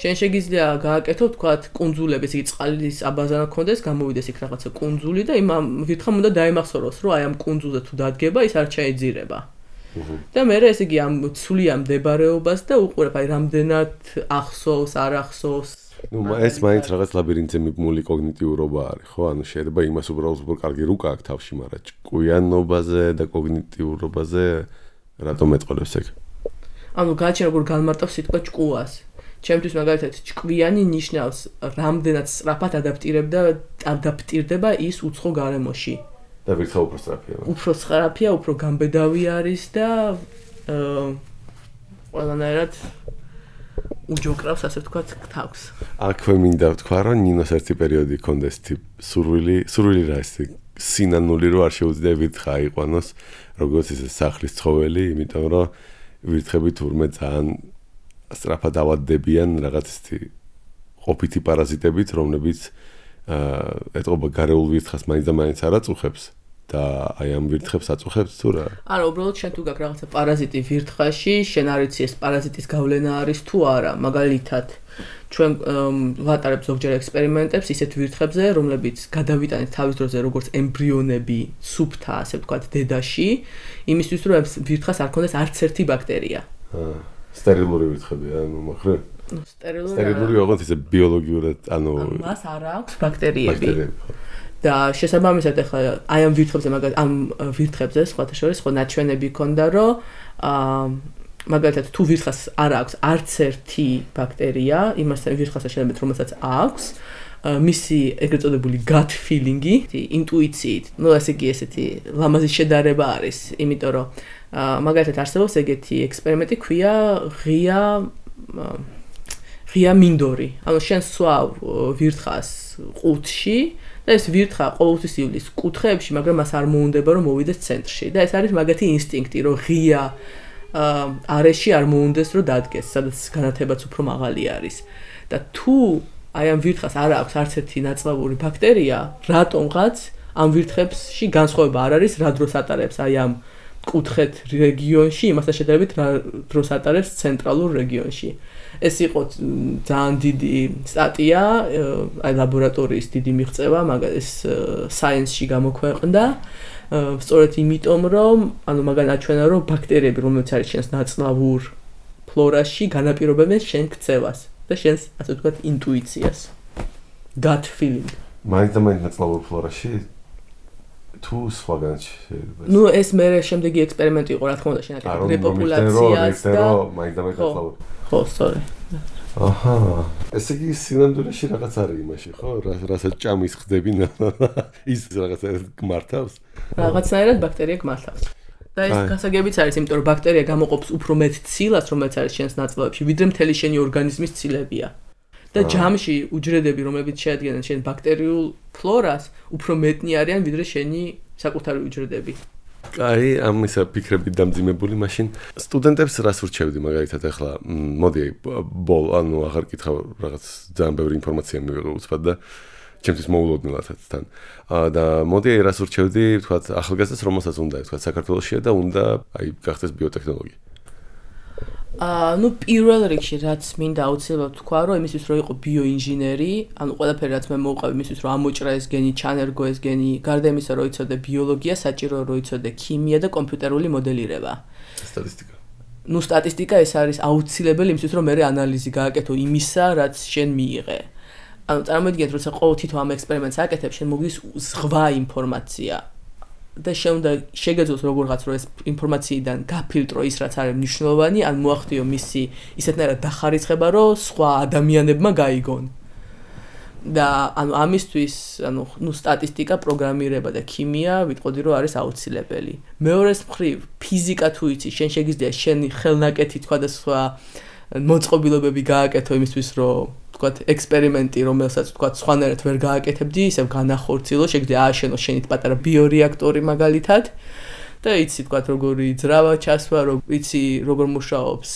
შენ შეგიძლია გააკეთო თქვათ კუნძულები, ესე იგი წყლის აბაზანა ქონდეს, გამოვიდეს იქ რაღაცა კუნძული და იმ ვირთხამ უნდა დაიმახსოვროს, რომ აი ამ კუნძულზე თუ დადგება, ის არ ჩაეძირება. და მე ესე იგი ამ ცვლია მდებარეობას და უყურებ აი რამდენად ახსოვს, არ ახსოვს. ნუ ეს მაინც რაღაც ლაბირინთზე მიბმული კოგნიტიურობა არის, ხო? ანუ შეიძლება იმას უბრალოდ უფრო კარგი რუკა აქვს თავში, მაგრამ ჭკვიანობაზე და კოგნიტიურობაზე რატომ ეწყოლებს ეგ? ანუ გააჩენ როგორ განმარტავს სიტყვა ჭკუას. ჩემთვის მაგალითად ჭკვიანი ნიშნავს რამდენად სწრაფად ადაპტირდება ის უცხო გარემოში. და ვირთხა უფრო სწრაფია. უფრო სწრაფია, უფრო გამბედავი არის და ყველანაირად უჯოկრავს, ასე ვთქვათ, თავს. აქვე მინდა ვთქვა, რომ ნინოს ერთი პერიოდი ჰქონდეს სურვილი რა ის სინანული რო არ შეუძლია ვირთხა აიყვანოს, როგორც ისე სახლის ცხოველი, იმიტომ რომ ვირთხები თურმე ძალიან სწრაფად ავადდებიან რაღაც ისეთი ყოფითი პარაზიტებით, რომლებიც ეტყობა გარეულ ვირთხას მაინც და მაინც არ აწუხებს და აი ამ ვირთხებს აწუხებს თუ რა? არა, უბრალოდ შენ თუ გაქვს რაღაცა პარაზიტი ვირთხაში, შენ არ იცი ეს პარაზიტის გავლენა არის თუ არა. მაგალითად, ჩვენ ვატარებთ ზოგჯერ ექსპერიმენტებს ისეთ ვირთხებზე, რომლებიც გადავიტანეთ თავის დროზე როგორც ემბრიონები სუფთა, ასე ვთქვათ, დედაში, იმისთვის რომ ვირთხას არ ქონდეს არც ერთი ბაქტერია. სტერილური ვირთხებია, ანუ მოხრე? სტერილური ოღონდ ისე ბიოლოგიურად, ანუ მას არ აქვს ბაქტერიები. და შესაბამისად ახლა აი ამ ვირთხებზე ამ ვირთხებზე სხვათა შორის ხო ნაჩვენები ქონდა, რომ მაგალითად თუ ვირთხას არ აქვს არც ერთი ბაქტერია, იმასთან ვირთხასთან შედარებით რომელსაც აქვს, მისი ეგრეთ წოდებული gut feeling-ი, ინტუიციით, ну ასე იგი ესეთი ლამაზი შედარება არის, იმიტომ რომ მაგალითად არსებობს ეგეთი ექსპერიმენტი, ქვია ღია მინდორი. ანუ შენ სვავ ვირთხას ყუთში და ეს ვირთხა ყოველთვის ივლის კუთხეებში, მაგრამ მას არ მოუნდება რომ მოვიდეს ცენტრში. და ეს არის მაგათი ინსტინქტი, რომ ღია არეში არ მოუნდეს რომ დადგეს, სადაც განათებაც უფრო მაღალი არის. და თუ აი ამ ვირთხას არ აქვს არც ერთი ნაწლავური ბაქტერია, რატომღაც ამ ვირთხებში განსხვავება არ არის, რა დროს ატარებს აი ამ კუთხეთ რეგიონში, იმასთან შედარებით რა დროს ატარებს ცენტრალურ რეგიონში. ეს იყო ძალიან დიდი სტატია, აი ლაბორატორიის დიდი მიღწევა, მაგრამ ეს Science-ში გამოქვეყნდა. სწორედ იმიტომ, რომ ანუ მაგან აჩვენა, რომ ბაქტერიები, რომელიც არის შენს ნაწლავურ ფლორაში, განაპირობებენ შენ ქცევას და შენს, ასე ვთქვათ, ინტუიციას. Gut feeling. მაინც ნაწლავურ ფლორაში თუ სხვაგან შეიძლება. ნუ ეს მე შემდეგი ექსპერიმენტი იყო, რა თქმა უნდა, შენაკეთებ რეპოპულაციას და მაინც ნაწლავურ. ხო, სწორი. აჰა. ესე იგი სინამდვილეში რაღაც არის იმაში, ხო? რასაც ჭამის ხდები ის რაღაცა გმართავს. რაღაცნაირად ბაქტერია გმართავს. და ეს გასაგებიც არის, იმიტომ რომ ბაქტერია გამოყოფს უფრო მეტ ცილას, რომელიც არის შენს ნაწლავებში, ვიდრე მთელი შენი ორგანიზმის ცილებია. და ჯამში უჯრედები, რომლებიც შეადგენენ შენ ბაქტერიულ ფლორას, უფრო მეტნი არიან, ვიდრე შენი საკუთარი უჯრედები. აი, ამისა ფიქრებით დამძიმებული, მაშინ სტუდენტებს რას ურჩევდი მაგალითად ახლა, მოდი ანუ აღარ კითხავ, რაღაც ძალიან ბევრი ინფორმაცია მივიღე უცბად და ჩემთვის მოულოდნელადაც თან. და მოდი რას ურჩევდი, ვთქვათ, ახალგაზრდას, რომელსაც უნდა, ვთქვათ, საქართველოშია და უნდა აი გახდეს ბიოტექნოლოგი. ნუ პირველ რიგში რაც მინდა აუცილებლად თქვა, რომ იმისთვის რომ იყო ბიოინჟინერი, ანუ ყველაფერი რაც მე მოვყავ იმისთვის რომ ამოჭრა ეს გენი, ჩანერგო ეს გენი, გარდა იმისა რომ იცოდე ბიოლოგია, საჭიროა რომ იცოდე ქიმია და კომპიუტერული მოდელირება. სტატისტიკა. ნუ სტატისტიკა ეს არის აუცილებელი იმისთვის რომ მე ანალიზი გააკეთო იმისა, რაც შენ მიიღე. ანუ წარმოიდგინეთ, როცა ყოველ თითო ამ ექსპერიმენტს აკეთებ, შენ მოგდის ზღვა ინფორმაცია. და შეგეძლოს როგორღაც რომ ეს ინფორმაციიდან გაფილტრო ის რაც არის მნიშვნელოვანი, ან მოახდიო მისი ისეთნაირად დახარიცხება, რომ სხვა ადამიანებმა გაიგონ. და ანუ ამისთვის, ანუ ნუ სტატისტიკა, პროგრამირება და ქიმია ვიტყოდი რომ არის აუცილებელი. მეორეს მხრივ, ფიზიკა თუ იცი, შენ შეგიძლია შენი ხელნაკეთი თქვა და სხვა მოწყობილობები გააკეთო იმისთვის, რომ თქვათ ექსპერიმენტი, რომელსაც თქვათ სხვანაირად ვერ გააკეთებდი, ისევ განახორციელო, შეგიძლია ააშენო შენით პატარა ბიორეაქტორი მაგალითად და იცი თქვათ როგორი ძრავა ჩასვა, იცი როგორ მუშაობს.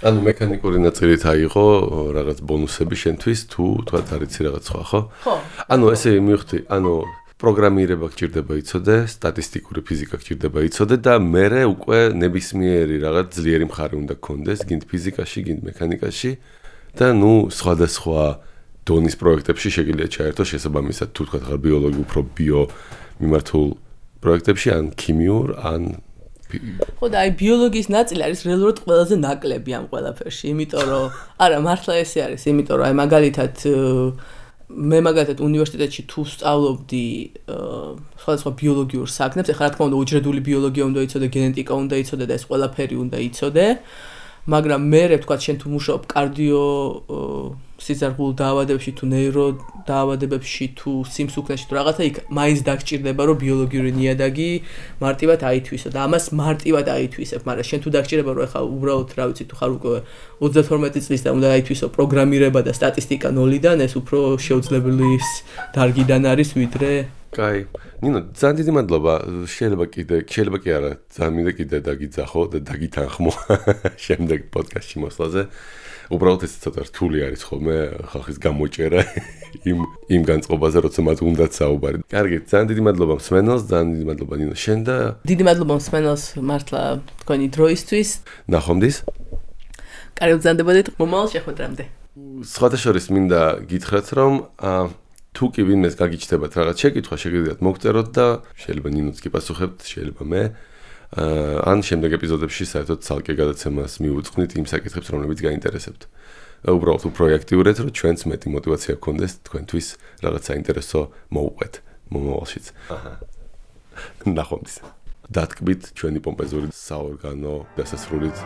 ანუ მექანიკური ნაწილით აიღო რაღაც ბონუსები შენთვის თუ თქვათ არ იცი რაღაც სხვა, ხო? ხო. ანუ ესე მივხვდი, ანუ პროგრამირება გჭირდება იცოდე, სტატისტიკური ფიზიკა გჭირდება იცოდე და მერე უკვე ნებისმიერი რაღაც ძლიერი მხარე უნდა გქონდეს, გინდ ფიზიკაში, გინდ მექანიკაში. და ნუ სხვადასხვა დონის პროექტებში შეგიძლია ჩაერთო შესაბამისად თუ თქვა ხარ ბიოლოგი უფრო ბიო მიმართულ პროექტებში ან ქიმიურ ან ხო და აი ბიოლოგიის ნაწილი არის რეალურად ყველაზე ნაკლები ამ ყველაფერში, იმიტომ რომ არა მართლა ესე არის, იმიტომ რომ აი მაგალითად მე მაგალითად უნივერსიტეტში თუ სწავლობდი სხვადასხვა ბიოლოგიურ საქმებს, ეხლა რა თქმა უნდა უჯრედული ბიოლოგია უნდა იცოდე, გენეტიკა უნდა იცოდე და ეს ყველაფერი უნდა იცოდე. მაგრამ მე ვთქვათ შენ თუ მუშაობ კარდიო სიზარგულ დაავადებებში თუ ნეირო დაავადებებში თუ სიმსუქნეში თუ რაღაცა იქ მაინც დაგჭირდება რომ ბიოლოგიური ნიადაგი მარტივად აითვისო და ამას მარტივად აითვისებ, მაგრამ შენ თუ დაგჭირდება რომ ეხლა უბრალოდ რა ვიცი თუ ხარ უკვე 32 წლის და უნდა აითვისო პროგრამირება და სტატისტიკა ნოლიდან, ეს უფრო შეუძლებელი დარგიდან არის ვიდრე კაი. ნინო, ძალიან დიდი მადლობა. შეიძლება კი არა, ძალიან მინდა კიდე დაგიძახო და დაგითანხმო შემდეგ პოდკასტში მოსვლაზე. უბრალოდ ეს ცოტა რთული არის ხოლმე ხალხის გამოჭერა იმ განწყობაზე, როცა მათ უნდათ საუბარი. კარგი, ძალიან დიდი მადლობა მსმენელს, ძალიან დიდი მადლობა ნინო შენ და დიდი მადლობა მსმენელს მართლა თქვენი დროისთვის. ნახვამდის. კარგი, ვზანდებოდეთ მომავალ შეხვედრამდე. სხვათა შორის მინდა გითხრათ, რომ თუ კი ვინმეს გაგიჩნდებათ რაღაც შეკითხვა, შეგიძლიათ მოგწეროთ და შეიძლება ნინოც კი პასუხებთ, შეიძლება მე. ან შემდეგ ეპიზოდებში საერთოდ ცალკე გადაცემას მივუძღვნით იმ საკითხებს, რომლებიც გაინტერესებთ. უბრალოდ უფრო აქტიურეთ, რომ ჩვენც მეტი мотиваცია გქონდეს თქვენთვის რაღაც საინტერესო მოუყვეთ მომავალშიც. ნახვამდის. დათკბით ჩვენი პომპეზური საორგანო დასასრულით.